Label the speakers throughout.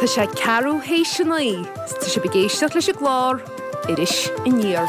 Speaker 1: Tá sé ceathrú théis a 9 's tá sibh ag éisteacht leis an gclár Iris Aniar.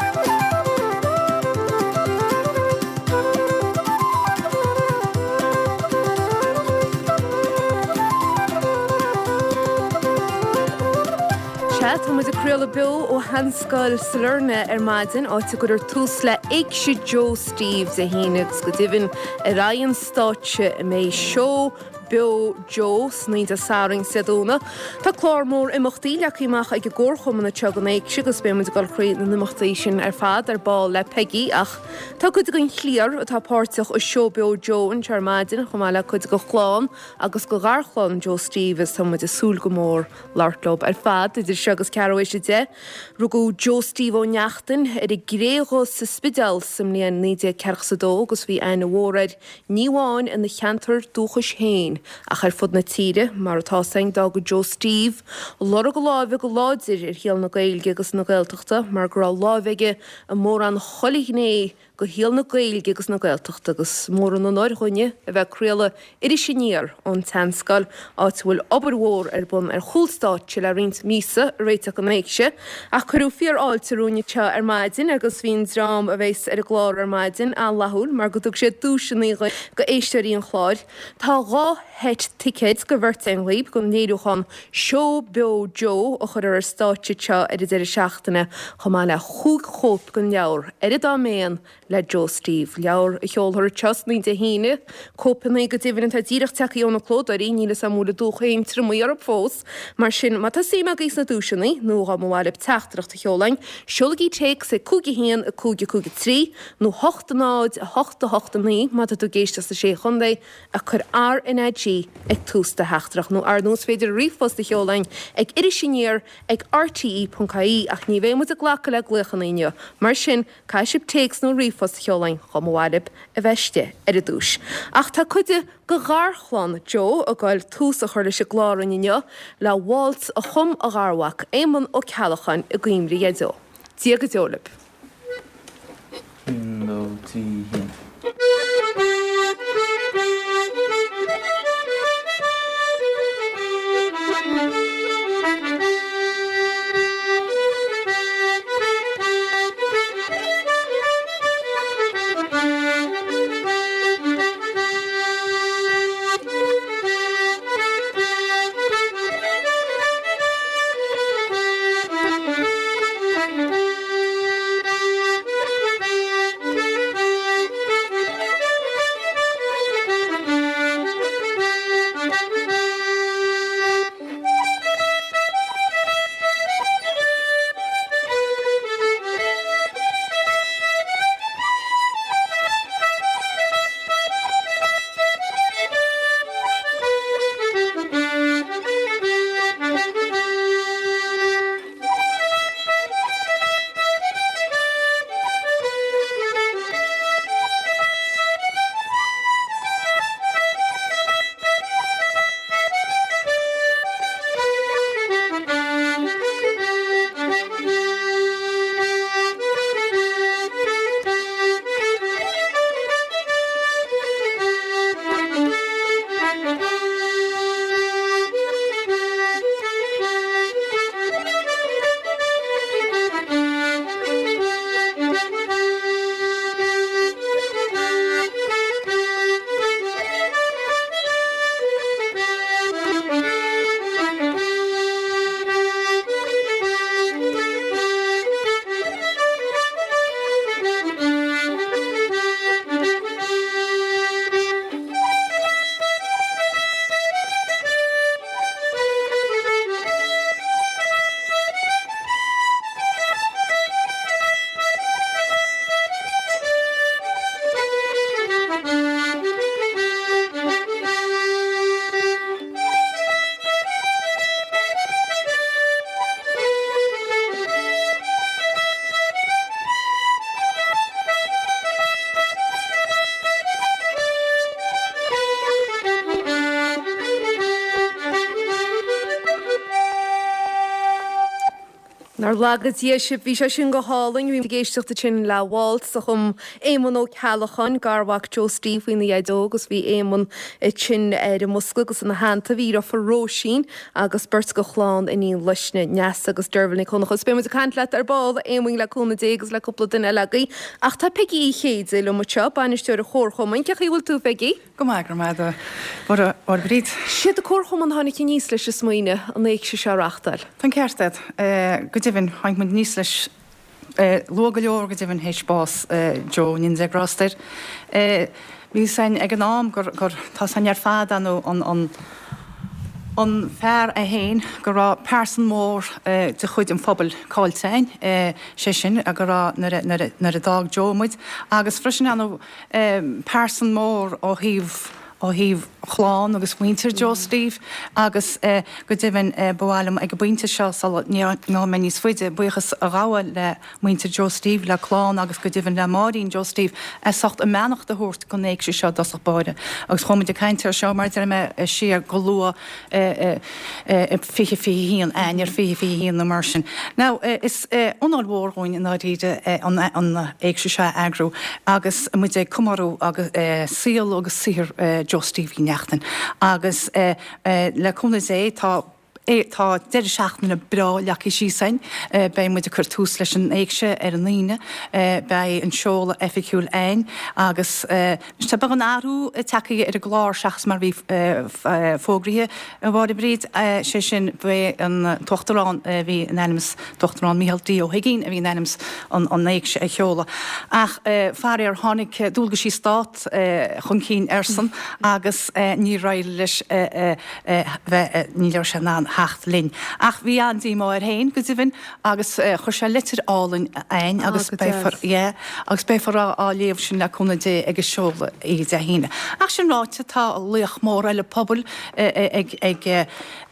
Speaker 1: Sea, tá muid ag craoladh beo ó Sheanscoil Sailearna ar maidin, áit a gcuirfear tús le Éigse Joe Steve Dé hAoine agus go deimhin ar aghaidh an stáitse a mbeidh seó beo Joe san oíche Dé Sathairn is Dé Domhnaigh. Tá clár mór imeachtaí leagtha amach ag an gComharchumann anseo don Éigse agus beidh muid ag dul thrí na n-imeachtaí sin ar fad ar ball le Peigí ach tá cuid den chliar atá páirteach i Seó Beo Joe anseo ar maidin chomh maith le cuid de chlann agus de gharchlann Joe Steve is tá muid ag súil go mór labhairt leo ar fad idir seo agus ceathrú théis 10. Rugadh Joe Steve Ó Neachtain ar an gCré Dhubh sa Spidéal sa mbliain 1942 agus bhí aithne mhór air ní amháin ina cheantar dúchais féin ach ar fud na tíre, mar atá 's againn d'fhága Joe Steve lorg a láimhe go láidir ar shaol na Gaeilge agus na Gaeltachta mar go raibh láimh aige i mórán chuile ghné de shaol na Gaeilge agus na Gaeltachta agus mór an onóir dhúinne a bheith ag craoladh Iris Aniar ón tSeanscoil, áit a bhfuil obair mhór ar bun ar chúl stáitse le roinnt míosa ag réiteach don Éigse. Ach cuireadh fíor-fháilte romhainn anseo ar maidin agus bhí an dream a bheas ar an gclár ar maidin an-fhlaithiúil mar go dtug siad duaiseanna go éisteoirí an chláir. Tá 2 sheit ticéid go bheirt againn dhaoib don léiriúchán Seó Beo Joe a chuirfear ar stáitse anseo ar an deireadh seachtaine chomh maith le chúig chóip den leabhar Ar an Dá Méan le Joe Steve, leabhar a sheolfar anseo san oíche Dé hAoine. Cóipeanna go deimhin atá díreach tagtha ó na clódóirí, níl 'fhios a'm an bhfuil an dúch féin triomaithe orthu fós. Mar sin, má tá suim agaibh sna duaiseanna, nó dá mba mhaith libh teachtaireacht a sheoladh chugainn, seolaigí téacs ag 5 1 5 5 3 nó 8 0 8 8 9 má tá tú ag éisteacht sna Sé Chontae, ach cuir RnaG ag tús do theachtaireacht nó ar ndóigh is féidir ríomhphost a sheoladh chugainn ag irisaniar ag rte.ie ach ní bheidh muid ag glacadh le glaochanna inniu, mar sin caithfidh sibh téacs nó ríomhphost a sheoladh chugainn dá mba mhaith libh a bheith istigh ar an duais. Ach tá cuid de gharchlann Joe ag goil tús a chur leis an gclár inniu le waltz a chum a gharmhac Éamonn Ó Ceallacháin i gcuimhne ar Dhaideo. Dia go deo libh. Nár laga Dia sibh, bhí sé sin go hálainn. Bhí muid ag éisteacht ansin le Waltz a chum Éamonn Ó Ceallacháin, garmhac Joe Steve faoina dhaideo agus bhí Éamonn ansin ar an mbosca agus ina theannta bhí a dheirfiúr Róisín agus beirt de chlann Iníon Luisne, Neasa agus Deirbhile Nic Dhonncha. Agus beidh muid ag caint leat ar ball, a Éamoinn, le cúnamh Dé agus le cúpla duine eile agaibh. Ach tá Peigí Uí Chéide liom anseo, bainisteoir an Chomharchumainn. Cén chaoi a bhfuil tú, a Pheigí?
Speaker 2: Go maith, go raibh maith agat, a Mháire Bríd.
Speaker 1: Siad an Comharchumann a tháinig aníos leis an smaoineamh an éigse seo a reachtáil.
Speaker 2: Tá an ceart agat. Go deimhin, tháinig muid aníos leis luath go leor, go deimhin, théis bás Joe, go ndéana Dia grásta air. Bhí fhios againn ag an am gur, gur, tá fhios againn ar fad, ar ndóigh, an, an, an fear é féin, go raibh pearsan mór de chuid an phobail caillte againn, sé sin, go raibh, nuair a, nuair a, nuair a d'fhág Joe muid, agus freisin, ar ndóigh, pearsan mór ó thaobh ó thaobh chlann agus mhuintir Joe Steve agus go deimhin ba mhaith liom ag an bpointe seo sula ngabhfaidh mé níos faide buíochas a ghabháil le muintir Joe Steve, le clann agus go deimhin le Máirín Joe Steve as ucht a mbeannacht a thabhairt don éigse seo i dtosach báire agus chuaigh muid ag caint air seo mar a deir mé siar go luath i 2021, Eanáir 2021 nó mar sin. Now, is onóir mhór dhúinn i ndáiríre an éigse seo a eagrú agus muid ag comóradh saol agus saothar Joe Steve Uí Neachtain. Agus le cúnamh Dé tá tá deireadh seachtaine breá leagtha síos againn. Beidh muid ag cur tús leis an éigse ar an Aoine. Beidh an seoladh oifigiúil againn agus Tá beagán athrú tagtha ar an gclár seachas mar a bhí fógraithe, a Mháire Bríd, sé sin, b'é an tUachtarán a bhí in ainm is, tUachtarán Micheál D. Ó hUiginn a bhí in ainm is an éigse a sheoladh. Ach faraor tháinig dualgaisí Stát chun cinn airsean agus níor éirigh leis bheith, ní raibh sé in ann theacht linn. Ach bhí an-díomá air féin, go deimhin. Agus chuir sé litir álainn a'ainn agus beifear, yeah, agus beifear á léamh sin le cúnamh Dé ag an seoladh oíche Dé hAoine. Ach sin ráite, tá laoch mór eile pobail ag, ag,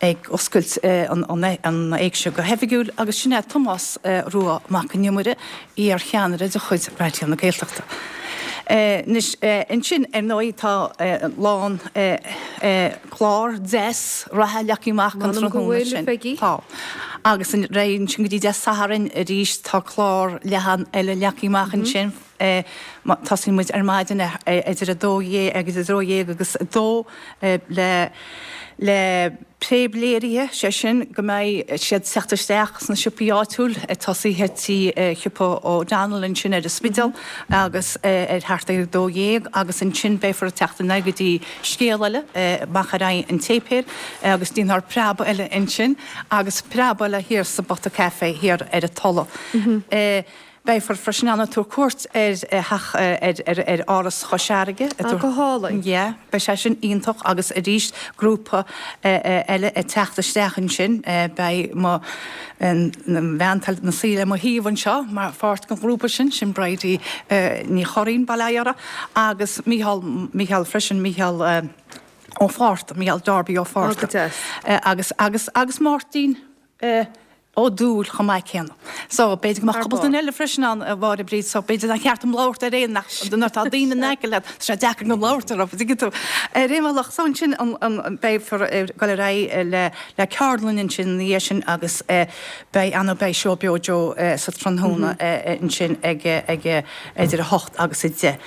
Speaker 2: ag oscailt an, an éigse go hoifigiúil agus sin é Tomás Rua Mac an Iomaire, iar-cheannaire de chuid Raidió na Gaeltachta. Anois, ansin, ar ndóigh, tá lán clár deas reatha leagtha amach don tráthnóna sin. Tá. Agus ar aghaidh ansin go dtí Dé Sathairn arís tá clár leathan eile leagtha amach ansin. Tosaíonn muid ar maidin idir 12 agus 12 agus 2 le le préamhléirithe, sé sin go mbeidh siad ag teacht isteach sna siopaí áitiúil, ag tosaithe tí shiopa O'Donnell ansin ar an Spidéal agus ar thart ar 12 agus ansin beifear ag teacht in aghaidh go dtí Scéal Eile amach ar aghaidh an tséipéil agus déanfar preab eile ansin agus preab eile thiar sa bPota Café thiar ar an Tulaigh. Beifear freisin ann ag tabhairt cuairt ar theach, ar Áras Chois Fharraige.
Speaker 1: Ah, go hálainn.
Speaker 2: Yeah, beidh sé sin iontach agus arís grúpa eile ag teacht isteach ansin. Beidh mo bhean ina suí le mo thaobh anseo mar pháirt den ghrúpa sin, sin Bridie Ní Churraoin, bail ó Dhia uirthi, agus Mícheál, Mícheál freisin, Mícheál Ó Fátharta, Mícheál Darby Ó Fátharta.
Speaker 1: Ah, go deas.
Speaker 2: Agus, agus, agus Máirtín. Ó Dúill chomh maith céanna. So, b'fhéidir go mbeadh cúpla duine eile freisin ann, a Mháire Bríd, so b'fhéidir nár cheart dom labhairt ar aon ach nuair atá daoine in aice leat, tá sé deacair gan labhairt orthu, an dtuigeann tú. Ar aon bhealach, so ansin an, an, beifear ag dul ar aghaidh le, le ceardlann ansin ina dhiaidh sin agus beidh, ar ndóigh, beidh Seó Beo Joe sa tráthnóna ansin ag, ag, idir 8 agus 10.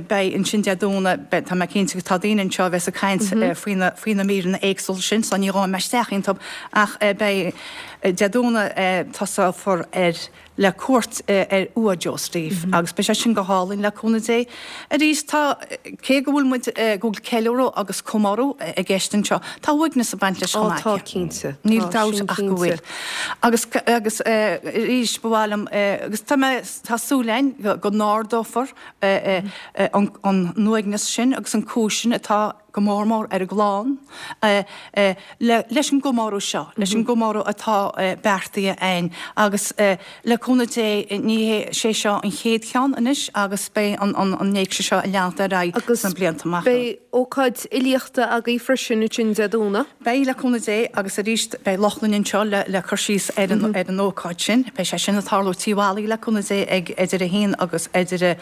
Speaker 2: Beidh ansin Dé Domhnaigh, beidh, tá mé cinnte go tá daoine anseo a bheas ag caint faoi na, faoi na míreanna éagsúla sin so ní ghabhfaidh mé isteach iontu ach beidh Dé Domhnaigh tosófar ar le cuairt ar uaigh Joe Steve agus beidh sé sin go hálainn le cúnamh Dé. Arís tá, cé go bhfuil muid, go bhfuil ceiliúradh agus comóradh i gceist anseo, tá uaigneas ag baint leis chomh maith.
Speaker 1: Ó tá cinnte.
Speaker 2: Níl dabht ach go bhfuil. Agus, agus arís ba mhaith liom, agus tá mé, Tá súil againn go n-ardófar an t-uaigneas sin agus an cúis sin atá go mór mór ar an gclann leis an gcomóradh seo, leis an gcomóradh atá beartaithe againn agus le cúnamh Dé ní hé sé seo an chéad cheann anois agus beidh an éigse seo ag leanacht ar aghaidh sna blianta amach
Speaker 1: romhainn. Beidh ócáid fhilíochta agaibh freisin ansin Dé Domhnaigh.
Speaker 2: Beidh, le cúnamh Dé, agus arís beidh Lochlainn anseo le cur síos ar an ar an ócáid sin. Beidh sé sin ag tarlú Tí Mholly, le cúnamh Dé, ag idir a haon agus idir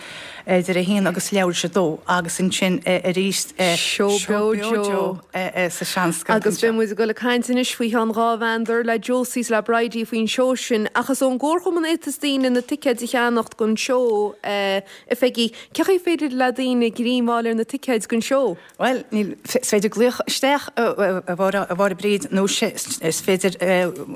Speaker 2: idir a haon agus leathuair tar éis a dó agus ansin arís
Speaker 1: Seó. Beo Joe
Speaker 2: sa Seanscoil
Speaker 1: Agus beidh muid ag dul ag caint anois faoi cheann dá mheandar le Josie is le Bridie faoin seó sin. Ach is ón gComharchumann a fhéadfas daoine na ticéid a cheannacht don seó, a Pheigí. Cén chaoi féidir le daoine greim a fháil ar na ticéid don seó?
Speaker 2: Bhuel, níl, is féidir glaoch isteach, a Mháire Bríd, nó is féidir,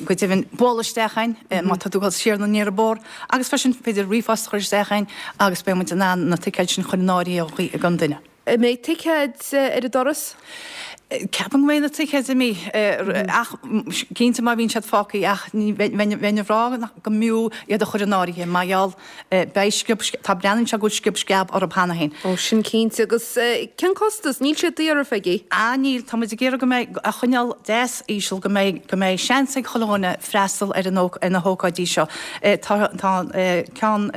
Speaker 2: go deimhin, bualadh isteach a'inn má tá tú ag dul siar nó aniar an bóthar, agus freisin féidir ríomhphost a chur isteach a'inn agus beidh muid in ann na ticéid sin a chur in áirithe don duine.
Speaker 1: An mbeidh ticéid ar an doras?
Speaker 2: Ceapaim go mbeidh na ticéid imithe, ach cinnte má bhíonn siad fágtha, ach bheinn ag rá go mb'fhiú iad a chur in áirithe mar gheall Beidh sciob, tá, breathnaíonn sé go bhfuil sciob sceab orthu cheana féin.
Speaker 1: Ó, sin cinnte. Agus cén costas? Níl sé daor, a Pheigí.
Speaker 2: Ah, níl. Tá muid ag iarraidh go mbeidh, a choinneáil deas íseal, go mbeidh, go mbeidh seans ag chuile dhuine freastal ar an, ar na hócáidí seo. Tá, tá ceann,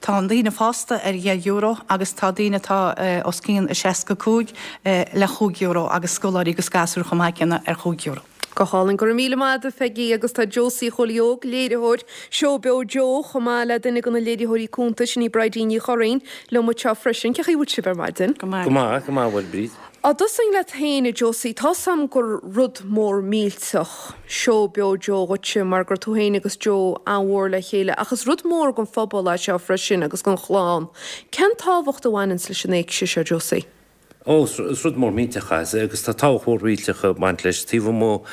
Speaker 2: tá an daoine fásta ar dheich euro agus tá daoine atá os cionn 65 le chúig euro agus scoláirí agus gasúir chomh maith céanna ar chúig euro.
Speaker 1: Go hálainn. Go raibh míle maith agat, a Pheigí. Agus tá Josie Chóilí Óg, léiritheoir Seó Beo Joe, chomh maith le duine de na léiritheoirí cúnta, sin í Bridie Ní Churraoin, liom anseo freisin. Cén chaoi a bhfuil sibh ar maidin?
Speaker 2: Go maith.
Speaker 3: Go maith, go maith, a Mháire Bríd.
Speaker 1: Á dtosóinn leat féin, a Josie. Tá's a'm gur rud mór millteach Seó Beo Joe dhuitse mar gur tú féin agus Joe an-mhór le chéile ach is rud mór don phobal é seo freisin agus don chlann. Cén tábhacht a bhaineanns leis an éigse seo, Josie?
Speaker 3: Ó, is rud mór millteach é, agus tá tábhacht mhór mhillteach ag baint leis. Taobh amuigh,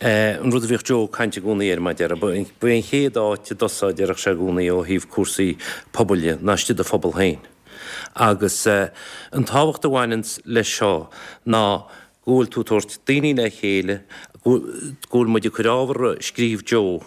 Speaker 3: an rud a bhíodh Joe ag caint i gcónaí air, mar a déarfá, ba é an chéad áit a dtosófá, a déarfadh sé i gcónaí, ó thaobh cúrsaí pobail dhe, ná istigh i do phobal féin. Agus an tábhacht a bhaineanns leis seo ná go bhfuil tú ag tabhairt daoine le chéile, go bhfuil muid ag cur ábhar a scríobh Joe,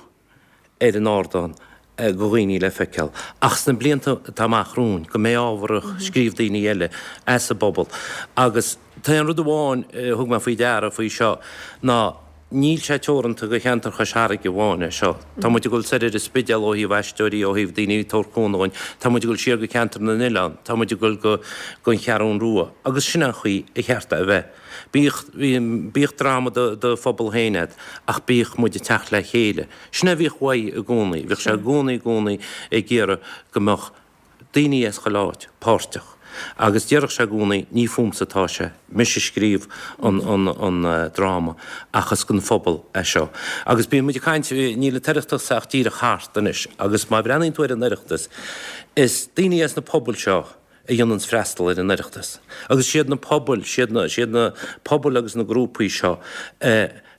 Speaker 3: ar an ardán do dhaoine le feiceáil, ach sna blianta atá amach romhainn, go mbeidh ábhar a scríobh daoine eile as an bpobal. Agus tá aon rud amháin a thug mé faoi deara faoi seo ná níl sé teoranta do cheantar Chois Fharraige amháin é seo. Tá muid ag dul soir ar an Spidéal ó thaobh aisteoirí, ó thaobh daoine ag tabhairt cúnamh dhúinn, tá muid ag dul siar go ceantar na n-oileán, tá muid ag dul go an Cheathrún Rua agus sin an chaoi a cheart é a bheith. Bíodh, bíodh dráma do do phobal féin agat ach bíodh muid ag teacht le chéile. Sin é a bhíodh uaidh i gcónaí. Bhíodh sé i gcónaí, i gcónaí ag iarraidh go mbeadh daoine as chuile áit páirteach. Agus déarfadh sé i gcónaí, ní fúmsa atá sé, mise a scríobh an, an, an dráma ach is don phobal é seo. Agus bíonn muid ag caint, níl an tOireachtas ach díreach thart anois agus má bhreathnaíonn tú ar an Oireachtas, is daoine as na pobail seo, a dhéananns freastal ar an Oireachtas. Agus siad na pobail, siad na, siad na pobail agus na grúpaí seo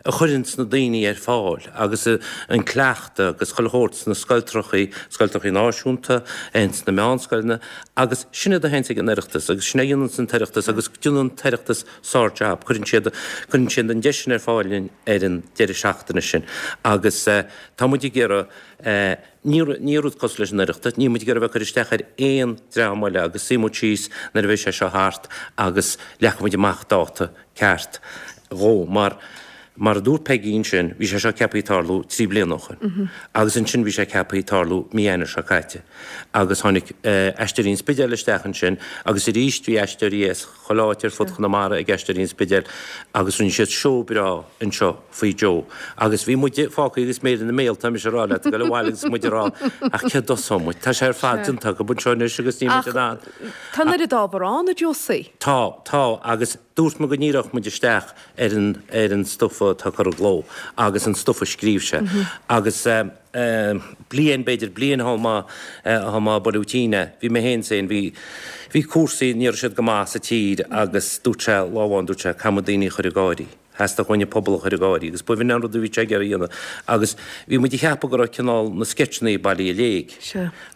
Speaker 3: a chuireanns na daoine ar fáil agus an cleachtadh agus chuile shórt sna scoiltreachaí, scoiltreachaí náisiúnta, ins na meánscoileanna agus sin iad a théanns ag an Oireachtas agus sin é a dhéananns an tOireachtas agus déanann an tOireachtas sár-jab. Cuireann siad, cuireann siad an deis sin ar fáil linn ar an deireadh seachtaine sin agus tá muid ag iarraidh Ní ní rud cosúil leis an Oireachtas, níl muid ag iarraidh a bheith ag cur isteach ar aon dream eile agus suífidh muid síos nuair a bheidh sé seo thart agus leagfaidh muid amach dáta ceart dhó mar mar a dúirt Peigí ansin, bhí sé seo ceaptha tarlú 3 bliana ó shoin agus ansin bhí sé ceaptha tarlú mí Eanáir seo caite agus tháinig Aisteoirí an Spidéil isteach ansin agus arís bhí aisteoirí as chuile áit ar fud Chonamara ag Aisteoirí an Spidéil agus rinne siad seó breá anseo faoi Joe. Agus bhí muide fágtha agus méid ina mbéal, tá mise ag rá leat, ag dul abhaile agus muid ag rá, ach cé dtosóidh muid? Tá sé ar fad déanta acu anseo anois agus níl muid in ann.
Speaker 1: Tá an oiread ábhar ann, a Josie.
Speaker 3: Tá, tá, agus dúirt mé go ndíreodh muid isteach ar an, ar an stuif atá curtha i gcló agus an stuif a scríobh sé. Agus bliain, b'fhéidir, bliain thá mé, thá mé ag bualadh tinn é. Bhí mé féin féin, bhí, bhí cúrsaí, ní raibh siad go maith sa tír agus dúirt sé lá amháin, dúirt sé, caithfidh muid daoine a chur ag gáirí. Theastaigh uainn an pobal a chur ag gáirí agus b'in an rud a bhí sé ag iarraidh a dhéanamh agus bhí muid ag ceapadh go raibh cineál na sceitseanna bailithe i léig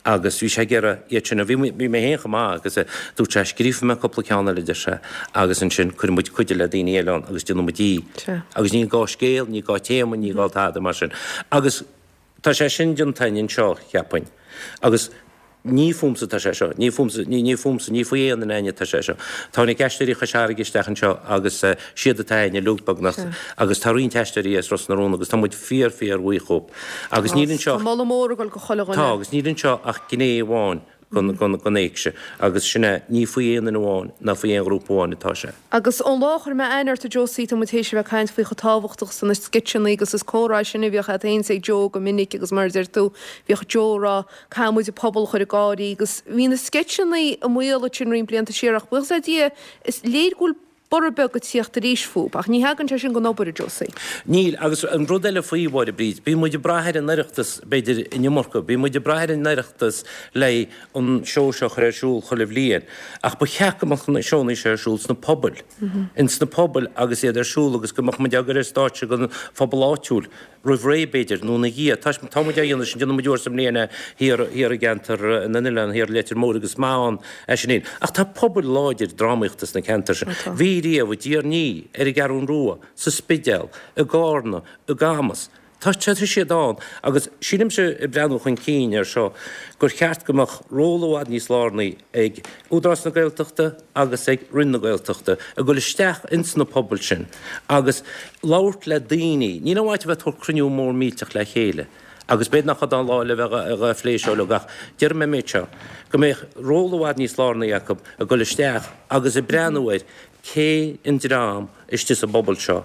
Speaker 3: agus bhí sé ag iarraidh iad sin a, bhí, bhí mé féin chomh maith agus dúirt sé scríobfaidh mé cúpla ceann eile a deir sé agus ansin cuirfidh muid cuid le daoine eile ann agus déanfaidh muid í agus ní gá scéal, ní gá téama, ní gá tada mar sin agus Tá sé sin déanta againn anseo, cheapfainn. Agus ní fúmsa atá sé seo, ní fúmsa, ní, ní fúmsa, ní faoi aon duine againne atá sé seo. Tháinig Aisteoirí Chois Fharraige isteach anseo agus siad atá againn uilig beagnach agus tá roinnt aisteoirí as Ros na Rún agus tá muid fíor, fíor bhuíoch dhóibh. Agus níl anseo.
Speaker 1: Tá moladh mór ag dul go chuile dhuine.
Speaker 3: Tá, agus níl anseo ach gné amháin den éigse agus sin é, ní faoi aon duine amháin ná faoi aon ghrúpa amháin atá sé.
Speaker 1: Agus ón lá a chuir mé aithne ort a Josie, tá muid théis a bheith ag caint faoi chomh tábhachtach is na sceitseanna agus is comhrá sin a bhíodh agat féin is ag Joe go minic agus mar a deir tú, bhíodh Joe ag rá, caithfidh muid an pobal a chur ag gáirí agus bhí na sceitseanna i mbaol ansin roinnt blianta siar ach buíochas le Dia, is léir go bhfuil. Borradh beag ag tíocht arís fúb, ach ní thagann sé sin gan obair, a Josie.
Speaker 3: Níl, agus an rud eile faoi, Mháire Bríd, bíonn muid ag brath ar an Oireachtas, b'fhéidir, an iomarca, bíonn muid ag brath ar an Oireachtas le an seó seo a chur ar siúl chuile bhliain, ach ba cheart go mbeadh na seónna seo ar siúl sna pobail, ins na pobail agus iad ar siúl agus go mbeadh muid á gcur ar stáitse don phobal áitiúil. roimh ré, b'fhéidir, nó ina dhiaidh. Tá, tá muid á dhéanamh sin, déanann muid uair sa mbliain é thiar, thiar i gceantar na n-oileán, thiar i Leitir Móir agus is maith ann é sin fhéin. Ach tá pobail láidir drámaíochta sna ceantair sin. Tá. Bhí riamh, i dTír an Fhia, ar an gCeathrún Rua, sa Spidéal, i gCárna, i gCamus. Tá, tá siad ann agus sílimse, ag breathnú chun cinn air seo, gur cheart go mbeadh ról i bhfad níos lárnaí ag Údarás na Gaeltachta agus ag Roinn na Gaeltachta ag dul isteach ins na pobail sin agus labhairt le daoine. Níl aon mhaith a bheith ag tabhairt cruinniú mór millteach le chéile agus b'fhéidir nach iod an lá le bheith ag plé seo uilig ach déarfaidh mé an méid seo, go mbeadh ról i bhfad níos lárnaí acu ag dul isteach agus ag breathnú ar cé an dream istigh sa bpobal seo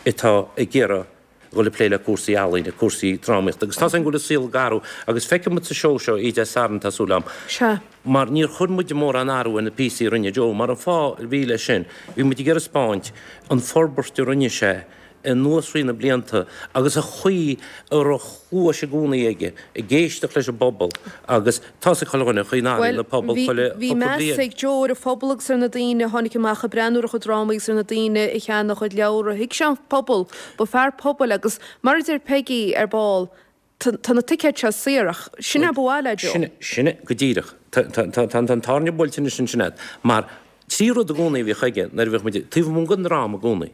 Speaker 3: atá ag iarraidh dhul ag plé le cúrsaí ealaíne, cúrsaí drámaíochta agus tá's againn go bhfuil an saol ag athrú agus feicfidh muid sa seó seo oíche Dé Sathairn tá súil agam.
Speaker 1: Sea.
Speaker 3: Mar níor chuir muid mórán athrú ar na píosaí a rinne Joe mar an fáth a bhí leis sin, bhí muid ag iarraidh 'spáint an forbairt a rinne sé anuas thrí na blianta agus an chaoi a raibh cluais i gcónaí aige ag éisteacht leis an bpobal agus tá's ag chuile dhuine an chaoi a n-athraíonn
Speaker 1: an
Speaker 3: pobal
Speaker 1: chuile Bhuel, bhí
Speaker 3: chúpla
Speaker 1: meas
Speaker 3: bliain.
Speaker 1: ag Joe ar an phobal agus ar na daoine a tháinig amach ag breathnú ar a chuid drámaí agus ar na daoine a cheannaigh a chuid leabhra. Thuig sé an pobal. Ba fear pobail agus mar a deir Peigí ar ball, tá na ticéid seo saor ach sin é ba mhaith le Joe.
Speaker 3: Sin é, sin é go díreach. Tá, tá, tá, tá an tairne buailte anois ansin agat. Mar trí rud i gcónaí a bhíodh aige nuair a bhíodh muid taobh amuigh den dráma i gcónaí.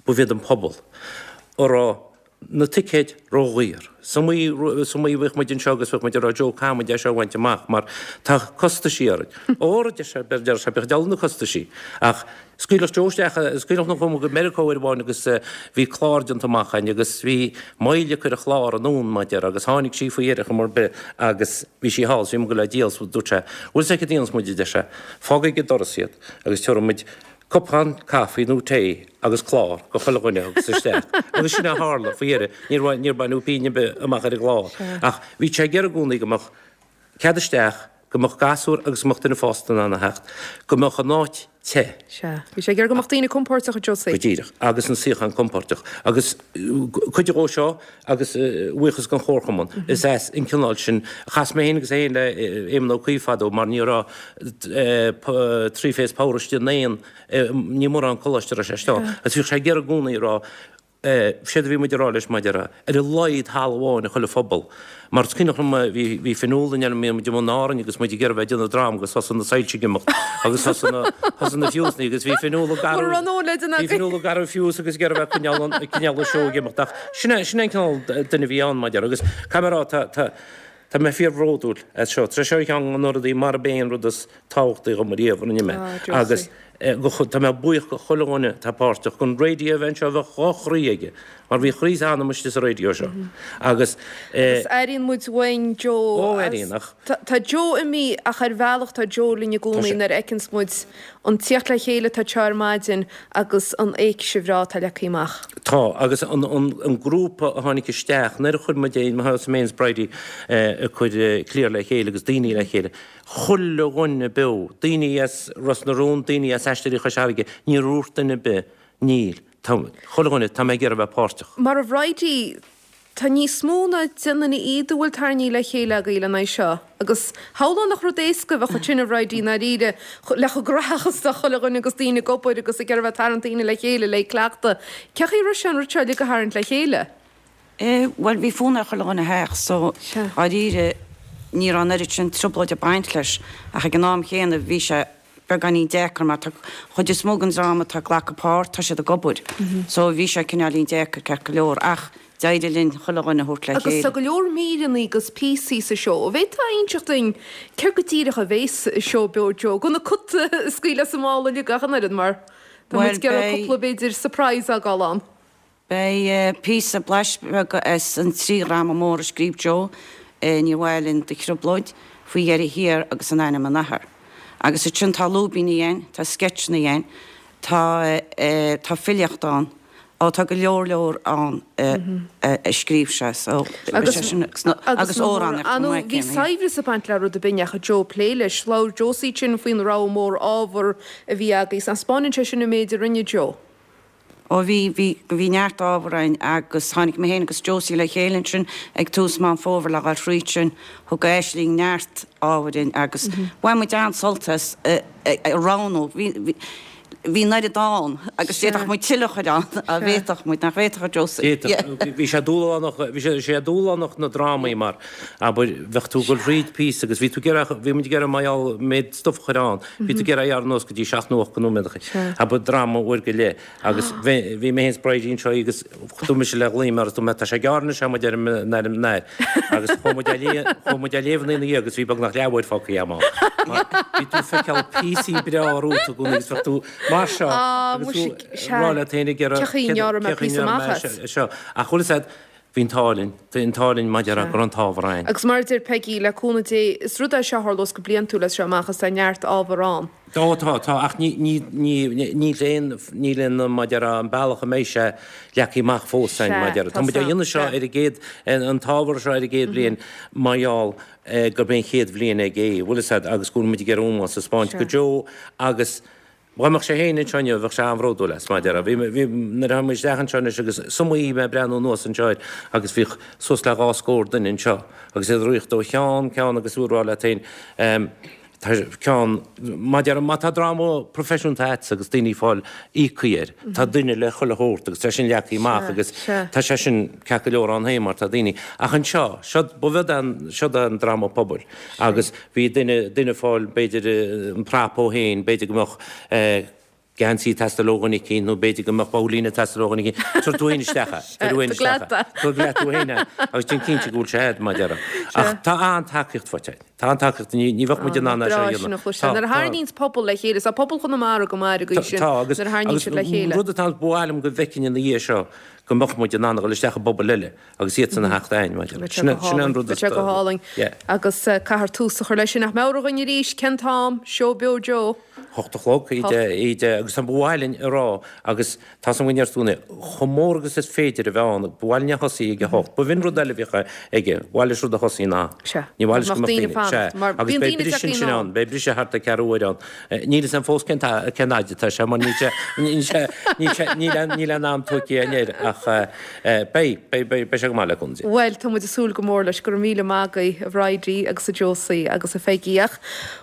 Speaker 3: Ba iad an pobal a raibh na ticéid ródhaor. Is iomaí, is iomaí a bhíodh muid anseo agus bheadh muid ag rá Joe caithfidh muid é seo a bhaint amach mar tá costaisí orainn. Óra, a deir sé, a deir sé, bíodh dealbh na costaisí. Ach scaoilfeadh Joe isteach, scaoilfeadh nó chuaigh muid go Meiriceá uair amháin agus bhí clár déanta amach againn agus bhí moill ag cur an chlár anonn mar a déarfá agus tháinig sí faoi dheireadh chuma ar bith agus bhí sí thall is bhí muid ag goil á díol so dúirt sé, bhfuil 's agat cad a dhéanfas muid a deir sé, fág ag an doras iad agus tabharfaidh muid Cupán caife nó tae agus clár go chuile dhuine a thiocfas isteach. Agus sin é a tharla, faoi dheireadh. Níor, níor baineadh pingin ar bith amach ar an gclár. Ach bhí sé ag iarraidh i gcónaí go mbeadh cead isteach, go mbeadh gasúr agus go mbeadh duine fásta in ann a theacht, go mbeadh an áit te.
Speaker 1: Sea. Bhí sé ag iarraidh go mbeadh daoine compóirteach, a Josie.
Speaker 3: Go díreach. Agus na suíocháin compóirteach. Agus cuid dhó seo, agus buíochas don Chomharchumann, is as an cineál sin, chas mé féin agus é féin le Éamon Ó Cuív fadó mar ní raibh three phase power istigh in aon, ní mórán coláiste a raibh sé istigh ann, agus bhíodh sé ag iarraidh i gcónaí a rá, séard a bhí muid a rá leis maidir le, ar a laghad halla amháin i chuile phobal. Mar is cuimhneach liom, bhí, bhí Fionnuala in bhí muid i mbun Árainn agus muid ag iarraidh bheith ag déanamh dráma agus thosaigh na soilse ag imeacht agus thosaigh na, thosaigh na fiúsanna agus bhí Fionnuala ag athrú,
Speaker 1: Mura raibh an leid in
Speaker 3: bhí
Speaker 1: agaibh.
Speaker 3: Fionnuala ag athrú fiús agus ag iarraidh bheith ag coinneáil an, ag coinneáil an seó ag imeacht ach sin é, sin é an cineál duine a bhí ann mar a déarfá agus caithfidh mé a rá tá, tá, tá mé fíorbhródúil as seo. Tá sé seo ar cheann de na rudaí mar ab é an rud is tábhachtaí dhom ariamh a rinne mé
Speaker 1: Ah,
Speaker 3: agus
Speaker 1: Josie.
Speaker 3: Tá mé buíoch go chuile dhuine atá páirteach, don raidió a bheith anseo, bheadh dhá chroí aige, mar bhí a chroí is a anam istigh sa raidió seo. Agus.
Speaker 1: Agus airíonn muid uainn Joe.
Speaker 3: Ó, airíonn, ach.
Speaker 1: Tá Joe imithe ach ar bhealach tá Joe linn i gcónaí nuair a fheiceanns muid an tíocht le chéile atá anseo ar maidin agus an éigse bhreá atá leagtha amach.
Speaker 3: Tá, agus an grúpa a tháinig isteach, nuair a chuir muid é, mar thosaigh mé féin is Bridie ag cur cliar le chéile agus daoine le chéile, Chuile dhuine beo, daoine as Ros na Rún, daoine as Aisteoirí Chois Fharraige, níor dhúirt duine ar bith, níl, tá, chuile dhuine, tá mé ag iarraidh a bheith páirteach.
Speaker 1: Mar a Bhridie, tá níos mó ná deich nduine fhichead a bhfuil tarraingthe le chéile agaibh lena aghaidh seo. Agus shamhlóinn nach rud éasca a bheadh ansin, a Bhridie, i ndáiríre, le chomh gnóthach is atá chuile dhuine agus daoine ag obair agus ag iarraidh a bheith ag tarraingt daoine le chéile le cleachtadh. Cén chaoi a raibh sé an rud seo uilig a tharraingt le chéile?
Speaker 2: Eh, bhuel, bhí fonn ar chuile dhuine theacht, so, dháiríre, ní raibh an oiread sin trioblóid ag baint leis, ach ag an am chéanna, bhí sé beagáinín deacair, mar tá chuid is mó den dream atá ag glacadh páirt, tá siad ag obair, so bhí sé cineáilín deacair, ceart go leor, ach d'éirigh linn chuile dhuine a thabhairt le
Speaker 1: Agus
Speaker 2: chéile.
Speaker 1: tá go leor míreanna agus píosaí sa seó. An bhféadfá a inseacht duinn céard go díreach a bhéas i seó beo Joe, gan an cat a scaoileadh as an mála uilig ach an oiread, mar tá muid
Speaker 2: Bhuel,
Speaker 1: ag iarraidh
Speaker 2: beidh.
Speaker 1: cúpla, b'fhéidir, surprise a fhágáil ann.
Speaker 2: Beidh píosa blais beag as an trí dhráma mór a scríobh Joe, Níor Mhaith Linn Do Thrioblóid, Faoi Dheireadh Thiar agus In Ainm an Athar. Agus ansin tá lúibíní ann, tá sceitseanna ann, tá tá filíocht ann.
Speaker 4: Ó tá go leor leor ann a scríobh sé so
Speaker 1: beidh sé sin agus amhránaíocht chomh maith Bhí céanna. saibhreas ag baint le rud ar bith a ndeachaigh Joe ag plé leis. Labhair Josie ansin faoin rogha mór ábhar a bhí agaibh. Taispeánann sé sin an méid a rinne Joe.
Speaker 4: Ó bhí, bhí, bhí neart ábhar againn agus tháinig mé féin agus Josie le chéile ansin ag tús Meán Fómhair le dhul thríd sin. Thug Aisling neart ábhair dhúinn agus bhain muid an-sult as a roghnú. Bhí, bhí, bhí an oiread ann agus d'fhéadfadh muid tuilleadh a chur ann, dá bhféadfadh muid, nach bhféadfadh a Josie?
Speaker 3: D'fhéadfadh. Bhí sé dúshlánach, bhí sé dúshlánach na drámaí mar, abair, bheadh tú ag dul thríd píosa agus bhí tú ag iarraidh, bhí muid ag iarraidh mar gheall méid stuif a chur ann, bhí tú ag iarraidh a ghearradh anuas go dtí seacht nó ocht de nóiméadacha, abair, dráma uair go leith agus bhí, bhí mé féin is Bridie anseo agus dúirt mise le Liam mar is dúirt mé tá sé gearr anois muid ar an ar an air agus chuaigh muid á léamh, chuaigh muid á léamh ina dhiaidh agus bhí beagnach leathuair fágtha agam ann. Mar bhí tú ag feiceáil píosaí breá romhat i gcónaí agus bheadh tú mar seo agus tú ag rá leat féin ag iarraidh cé chaoi a ngearrfaidh mé seo. Ach bhfuil fhios a'd, bhí an t-ádh linn, bhí an t-ádh linn maidir le go raibh an t-ábhar againn.
Speaker 1: Agus mar a deir Peigí, le cúnamh Dé, is rud é seo a tharlós go bliantúil as seo amach is tá neart ábhar ann.
Speaker 3: Ó tá, tá, ach ní, ní, ní, níl aon, níl aon, mar a déarfá, an bealach a mbeidh sé leagtha amach fós againn, mar a déarfá. Tá muid á dhéanamh seo ar an gcéad, an t-ábhar seo ar an gcéad bhliain mar gheall gurb é an chéad bhliain aige é, bhfuil fhios a'd, agus go bhfuil muid ag iarraidh ómós a spáint go Joe agus dá mbeadh sé féin anseo inniu bheadh sé an-bhródúil as, mar a déarfá. Bhí, bhí, nuair a tháinig muid isteach anseo anois agus is iomaí mé ag breathnú anuas anseo air agus bhíodh suas le dhá scór duine anseo agus iad ag rith ó cheann ceann agus tú ag rá leat féin, Tá ceann, mar a déarfá, má tá dráma proifisiúnta a'dsa agus daoine ag fáil íoctha air, tá duine le chuile shórt agus tá sin leagtha amach agus tá sé sin ceart go leor ann féin mar tá daoine. Ach anseo, seo, ba bheag an, seo an dráma pobail agus bhí duine, duine ag fáil b'fhéidir an prop ó féin, b'fhéidir go mbeadh eh, geansaí ag teastáil ó dhuine eicínt nó b'fhéidir go mbeadh babhlaín ag teastáil ó dhuine eicínt. Tabhair tú féin isteach é. Tabhair tú féin isteach é. Tabhair leat tú féin é agus déan cinnte go bhfuil sé a'd, mar a déarfá. Ach tá an-tacaíocht faighte againn. Tá an-tacaíocht, ní ní bheadh muid in ann é seo a dhéanamh.
Speaker 1: Tá, Nuair a tharraingíonns pobal le chéile, tá pobal Chonamara go maith ar an gcaoi sin,
Speaker 3: Tá, agus nuair a tharraingíonn siad le chéile. rud atá, ba mhaith liom go bhfeicfinn ina dhiaidh seo go mbeadh muid in ann a dhul isteach i bpobail eile agus iadsan a theacht a'ainn, mar a déarfá. Sin sin an rud
Speaker 1: is. Bheadh sé go hálainn. Yeah. Agus caithfear tús a chur leis sin. Ach meabhraigh dhúinn arís, cén t-am, Seó Beo Joe?
Speaker 3: Hocht a chlog, íde, agus tá ba mhaith linn a rá, agus tá san againn ar stúna, chomh mór agus is féidir a bheith ann, ba mhaith linn a thosaí ag a hocht. Ba bh'in rud eile a bhíodh aige, ba mhaith leis rud a thosaí in am.
Speaker 1: Sea.
Speaker 3: Ní mhaith leis go mbeadh daoine, sea. Agus beidh briseadh ansin ann, beidh briseadh thart ar ceathrú uair ann. Níl fhios a'm fós cén cén fhaid atá sé, mar níl sé, níl sé, níl sé, níl aon, níl aon am tugtha againn air, ach beidh, beidh, beidh, beidh sé go maith le cúnamh Dé.
Speaker 1: Bhuel, tá muid ag súil go mór leis. Go raibh míle maith agaibh, a Bhridie agus a Josie agus a Pheigí. Ach,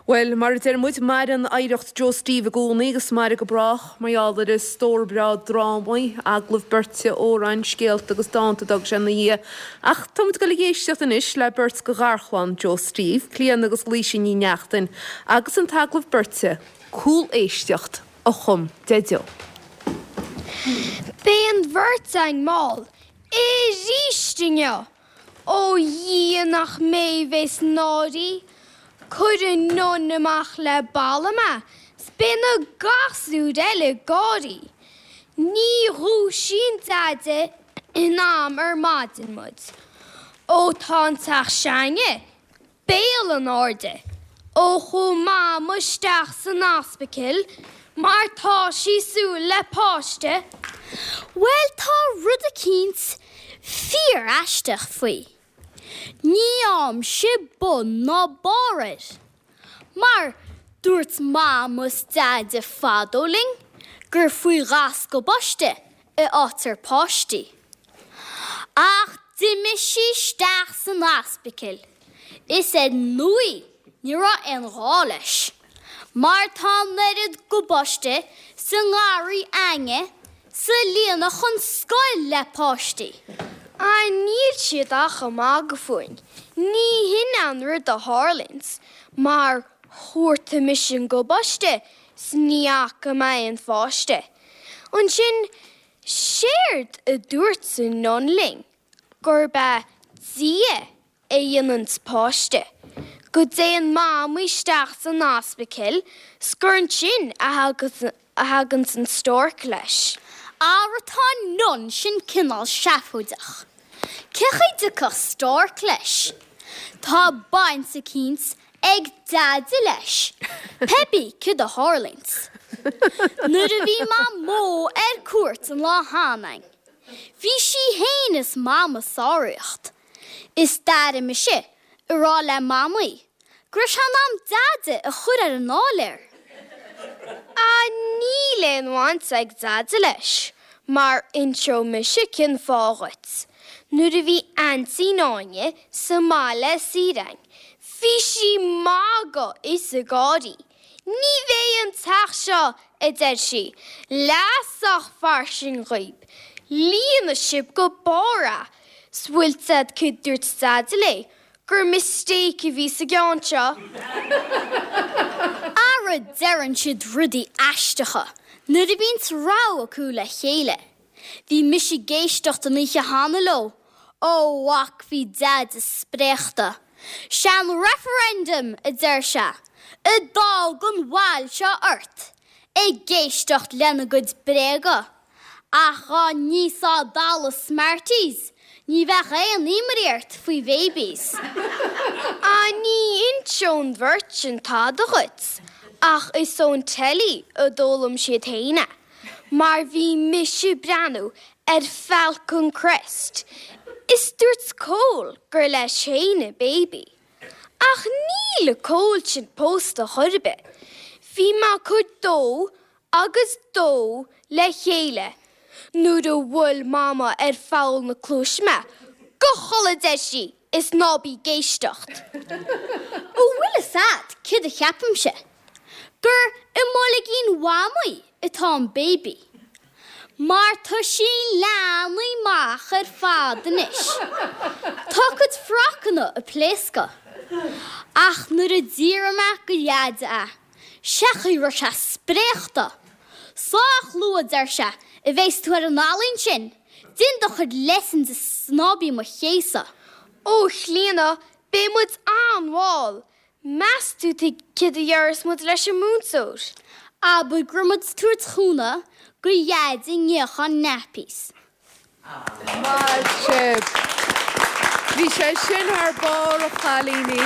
Speaker 1: Bhuel, mar a deir muid, maireann oidhreacht Joe Steve i gcónaí agus mairfidh go brách mar gheall ar a stór breá drámaí, agallaimh beirte, amhráin, scéalta agus dánta a d'fhág sé ina dhiaidh. Ach tá muid ag dul ag éisteacht anois le beirt de gharchlann Joe Steve, Clíodhna agus Laoise Ní Neachtain, agus an t-agallamh beirte, Cúléisteacht, a chum Deaideo.
Speaker 5: Beidh an bheirt againn mall aríst inniu! Ó Dhia nach mé bhéas náirí, Cuir an nun amach le balla mé 's beidh na gasúir eile ag gáirí. Ní dhúisíonn Deaide in am ar maidin muid. Ó tá an teach s'againne béal in airde ó chuaigh Mama isteach san ospidéal mar tá sí súil le páiste.
Speaker 6: Bhuel tá rud eicínt fíor-aisteach faoi. Ní fhaighimse bun ná barr air. Mar dúirt Mama is Deaide fadó linn gur faoi ghas gobáiste a fhaightear páistí. Ach d'imigh sí isteach san ospidéal is ar ndóigh ní raibh aon ghá leis, mar tá an oiread gobáiste sa ngarraí a'ainne 's a líonfadh an scoil le páistí.
Speaker 5: Ah níl siad ach ag magadh fúinn, ní hin an rud a tharlaíonns, mar chuartaigh mise an gobáiste 's ní fhaca mé aon pháiste. Ansin Séard a dúirt an nun linn gurb é Dia a dhéananns páiste, go dtéann Mamaí isteach san ospidéal 's gur ansin a thaganns an stork leis.
Speaker 6: Ara tá an nun sin cineál seafóideach. Cén chaoi a dtiocfadh stork leis? Tá baint eicínt ag Deaide leis, pé bí céard a tharlaíonns. Nuair a bhí Mamó ar cuairt an lá cheana againn, bhí sí fhéin is Mam ag sáraíocht. Is d'airigh mise ag rá le Mamaí go raibh sé in am Deaide a chur ar an áiléar.
Speaker 5: Ah níl aon bhaint ag Deaide leis, mar inseoidh mise cén fáth dhuit. Nuair a bhí Aintín Áine sa mbaile ar saoire againn, bhí sí ag magadh is ag gáirí. Ní bheidh an teach seo, a deir sí, leath sách fairsing dhaoib. Líonfaidh sibh go barr é. 'S bhfuil 's a'd céard dúirt Deaide léi? Gur mistake a bhí sa gceann seo.
Speaker 6: Ara deireann siad rudaí aisteacha nuair a bhíonns rogha acu le chéile. Bhí mise ag éisteacht an oíche cheana leo, ó mhac bhí Deaide spréachta. 'Sé an referendum, a deir sé, a d'fhág an bhail seo ort ag éisteacht lena gcuid bréaga. Ach dhá n-íosfá dalladh Smarties, ní bheadh aon imní ort faoi bhabies.
Speaker 5: Ah ní inseoidh an bheirt sin tada dhuit, ach is ón teilí a d'fhoghlaim siad féin é, mar bhí mise ag breathnú ar Falcon Crest is dúirt Cole gur leis féin an baby. Ach níl an Cole sin pósta chor ar bith. Bhí mé ag cur dó agus dó le chéile nuair a bhuail Mama ar pholl na cluaise mé, Gabh a chodladh a deir sí, is ná bí ag éisteacht.
Speaker 6: An bhfuil fhios a'd céard a cheapaimse? Gur i mboilgín Mhamaí atá an baby. Mar tá sí leathnaithe amach ar fad anois. Tá a cuid frocanna ag pléascadh. Ach nuair a d'fhiafraigh mé go Dheaide é, Sé an chaoi a raibh sé spréachta. Sách luath, a deir sé, a bheas tú ar an ealaín sin, déan do chuid lessons is ná bí mo chéasadh.
Speaker 5: Ó, a Chlíona, beidh muid an-mhall. Meas tú céard a dhéarfas muid leis an múinteoir?
Speaker 6: Abair go raibh muid ag tabhairt cúnamh go Dheaide ag níochán nappies.
Speaker 1: Maith sibh. Bhí sé sin thar barr a chailíní.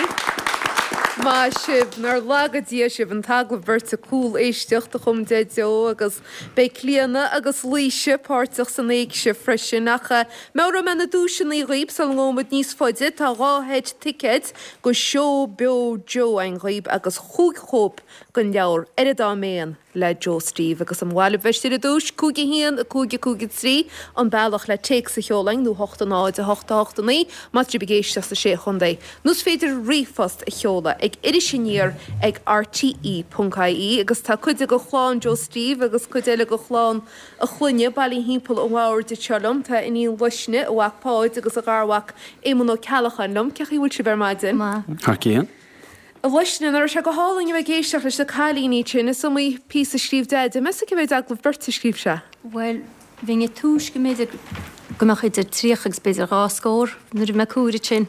Speaker 1: Maith sibh. Nár laga Dia sibh. An t-agallamh beirte Cúl-éisteacht a chum Deaideo agus beidh Clíona agus Laoise páirteach san éigse freisin. Ach meabhróidh mé na duaiseanna dhaoib sula ngabhfaidh muid níos faide. Tá 2 sheit ticéid go seó beo Joe againn dhaoib agus chúig chóip den leabhar Ar an Dá Mhéan. le Joe Steve agus an mhaith libh bheith istigh ar an duais, 5 1 5 5 3 an bealach le téacs a sheoladh chugainn nó 8 0 8 8 9 má tá sibh ag éisteacht sna Sé Chontae. Nó is féidir ríomhphost a sheoladh ag irisaniar ag rte ponc ie agus tá cuid de chlann Joe Steve agus cuid eile de chlann a chlainne bailithe thimpeall an bhoird anseo liom. Tá a iníon Luisne, a mhac Páid agus a gharmhac Éamonn Ó Ceallacháin liom. Cén chaoi a bhfuil sibh ar maidin?
Speaker 2: Maith.
Speaker 7: Thar cionn.
Speaker 1: A Luisne, nach raibh sé go hálainn a bheith ag éisteacht leis na cailíní ansin? Is iomaí píosa a scríobh Deaide. Meas tú cé mhéad agallamh beirte a scríobh sé?
Speaker 8: Bhuel, bhínn ag tomhas go mb'fhéidir go mbeadh idir 30 agus b'fhéidir 2 scór nuair a bhí mé ag comhaireamh sin,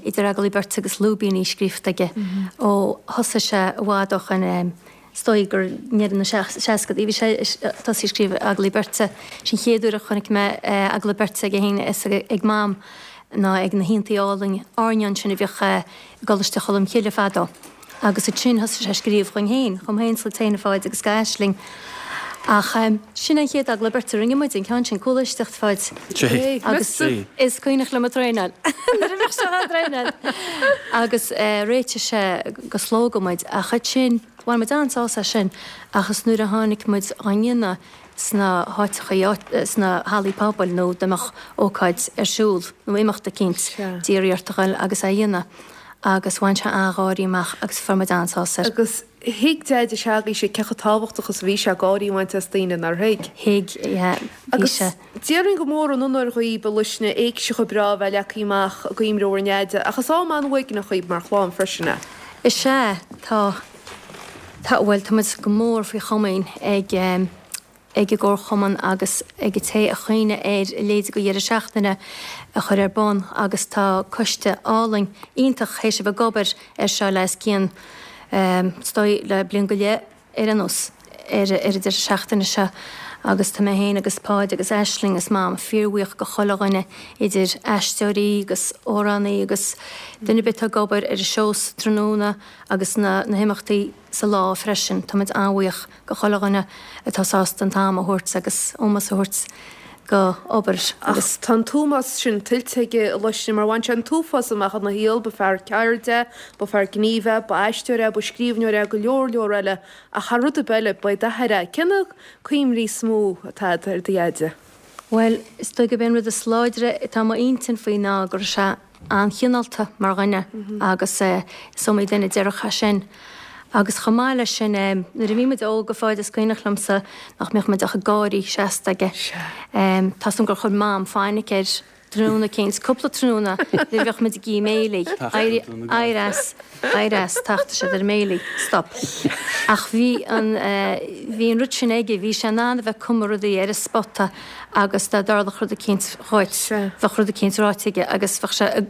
Speaker 8: idir agallaimh beirte agus lúibíní scríofa aige ó thosaigh sé i bhfad ó shoin. Is dóigh gur i ndeireadh na seascadaí a bhí sé ag tosaí ag scríobh agallaimh beirte. Sin an chéad uair a chonaic mé agallamh beirte aige féin is ag Mam ná ag na haontaí álainn airneáin sin a bhíodh i gColáiste Cholm Chille fadó. Agus ansin thosaigh sé ag scríobh dhúinn féin, dhom féin is do Chlíona Pháid agus d'Aisling. Ach sin é an chéad agallamh beirte a rinne muid, an ceann sin, cúléisteacht Pháid. Agus is cuimhneach liom ag traenáil nuair a bhíodh sé á dtraenáil. Agus réitigh sé go Slógadh muid ach ansin bhain muid an-sásamh as sin ach is nuair a tháinig muid á ndéanamh sna háiteacha, sna hallaí pobail nó dá mbeadh ócáid ar siúl nó imeacht eicínt, d'iarraidh ort a ghoil agus é a dhéanamh agus bhain sé an-gháirí amach agus fuair muid an-sásamh air.
Speaker 1: Agus thuig Deaide s'agaibhse cé chomh tábhachtach is a bhí sé gáirí a bhaint as daoine, nár thuig?
Speaker 8: Thuig, yeah, bhí
Speaker 1: Agus
Speaker 8: sé.
Speaker 1: déarfainn gur mór an onóir dhaoib, a Luisne, éigse chomh breá a bheith leagtha amach i gcuimhne bhur nDeaide, ach is am an-uaigneach dhaoib mar chlann freisin é.
Speaker 8: Is ea, tá, tá, bhuel, tá muid go mór faoi chomaoin ag, ag an gComharchumann agus ag an té a chuimhnigh ar a leithéid de dheireadh seachtaine a chur ar bun agus tá coiste álainn iontach théis a bheith ag obair air seo le os cionn, is dóigh, le bliain go leith ar aon nós, ar an deireadh seachtaine seo. Agus tá mé féin agus Páid agus Aisling is Mam fíorbhuíoch go chuile dhuine, idir aisteoirí agus amhránaí agus duine ar bith atá ag obair ar an seó sa tráthnóna agus na na himeachtaí sa lá freisin. Tá muid an-bhuíoch go chuile dhuine atá sásta an t-am a thabhairt agus ómós a thabhairt go obair
Speaker 1: agus. Ach tá an t-ómós sin tuillte aige a Luisne mar bhain sé an t-uafás amach ina shaol, ba fear ceirde é, ba fear gnímh é, ba aisteoir é, ba scríbhneoir é, go leor leor eile ach thar rud ar bith eile, ba é d'athair é. Cé na cuimhní is mó atá agat ar do Dheaide?
Speaker 8: Bhuel, is dóigh gurb é an rud is láidre atá i m'intinn faoi ná go raibh sé an-chineálta mar dhuine agus is iomaí duine a déarfadh é sin. Agus chomh maith leis sin, nuair a bhí muid óg, a Pháid, is cuimhneach liomsa nach mbeadh muid ach ag gáirí seasta aige. Tá 's agam gur chuir Mam fainic air tráthnóna eicínt, cúpla tráthnóna, nuair a bheadh muid ag ithe béilí. Éirigh as, éirigh as, tachtfaidh siad ar an mbéilí. Stop. Ach bhí an, bhí an rud sin aige, bhí sé in ann a bheith ag cumadh rudaí ar an spota agus dá dtarlódh rud eicínt dhuit, bheadh rud eicínt ráite aige agus bheadh sé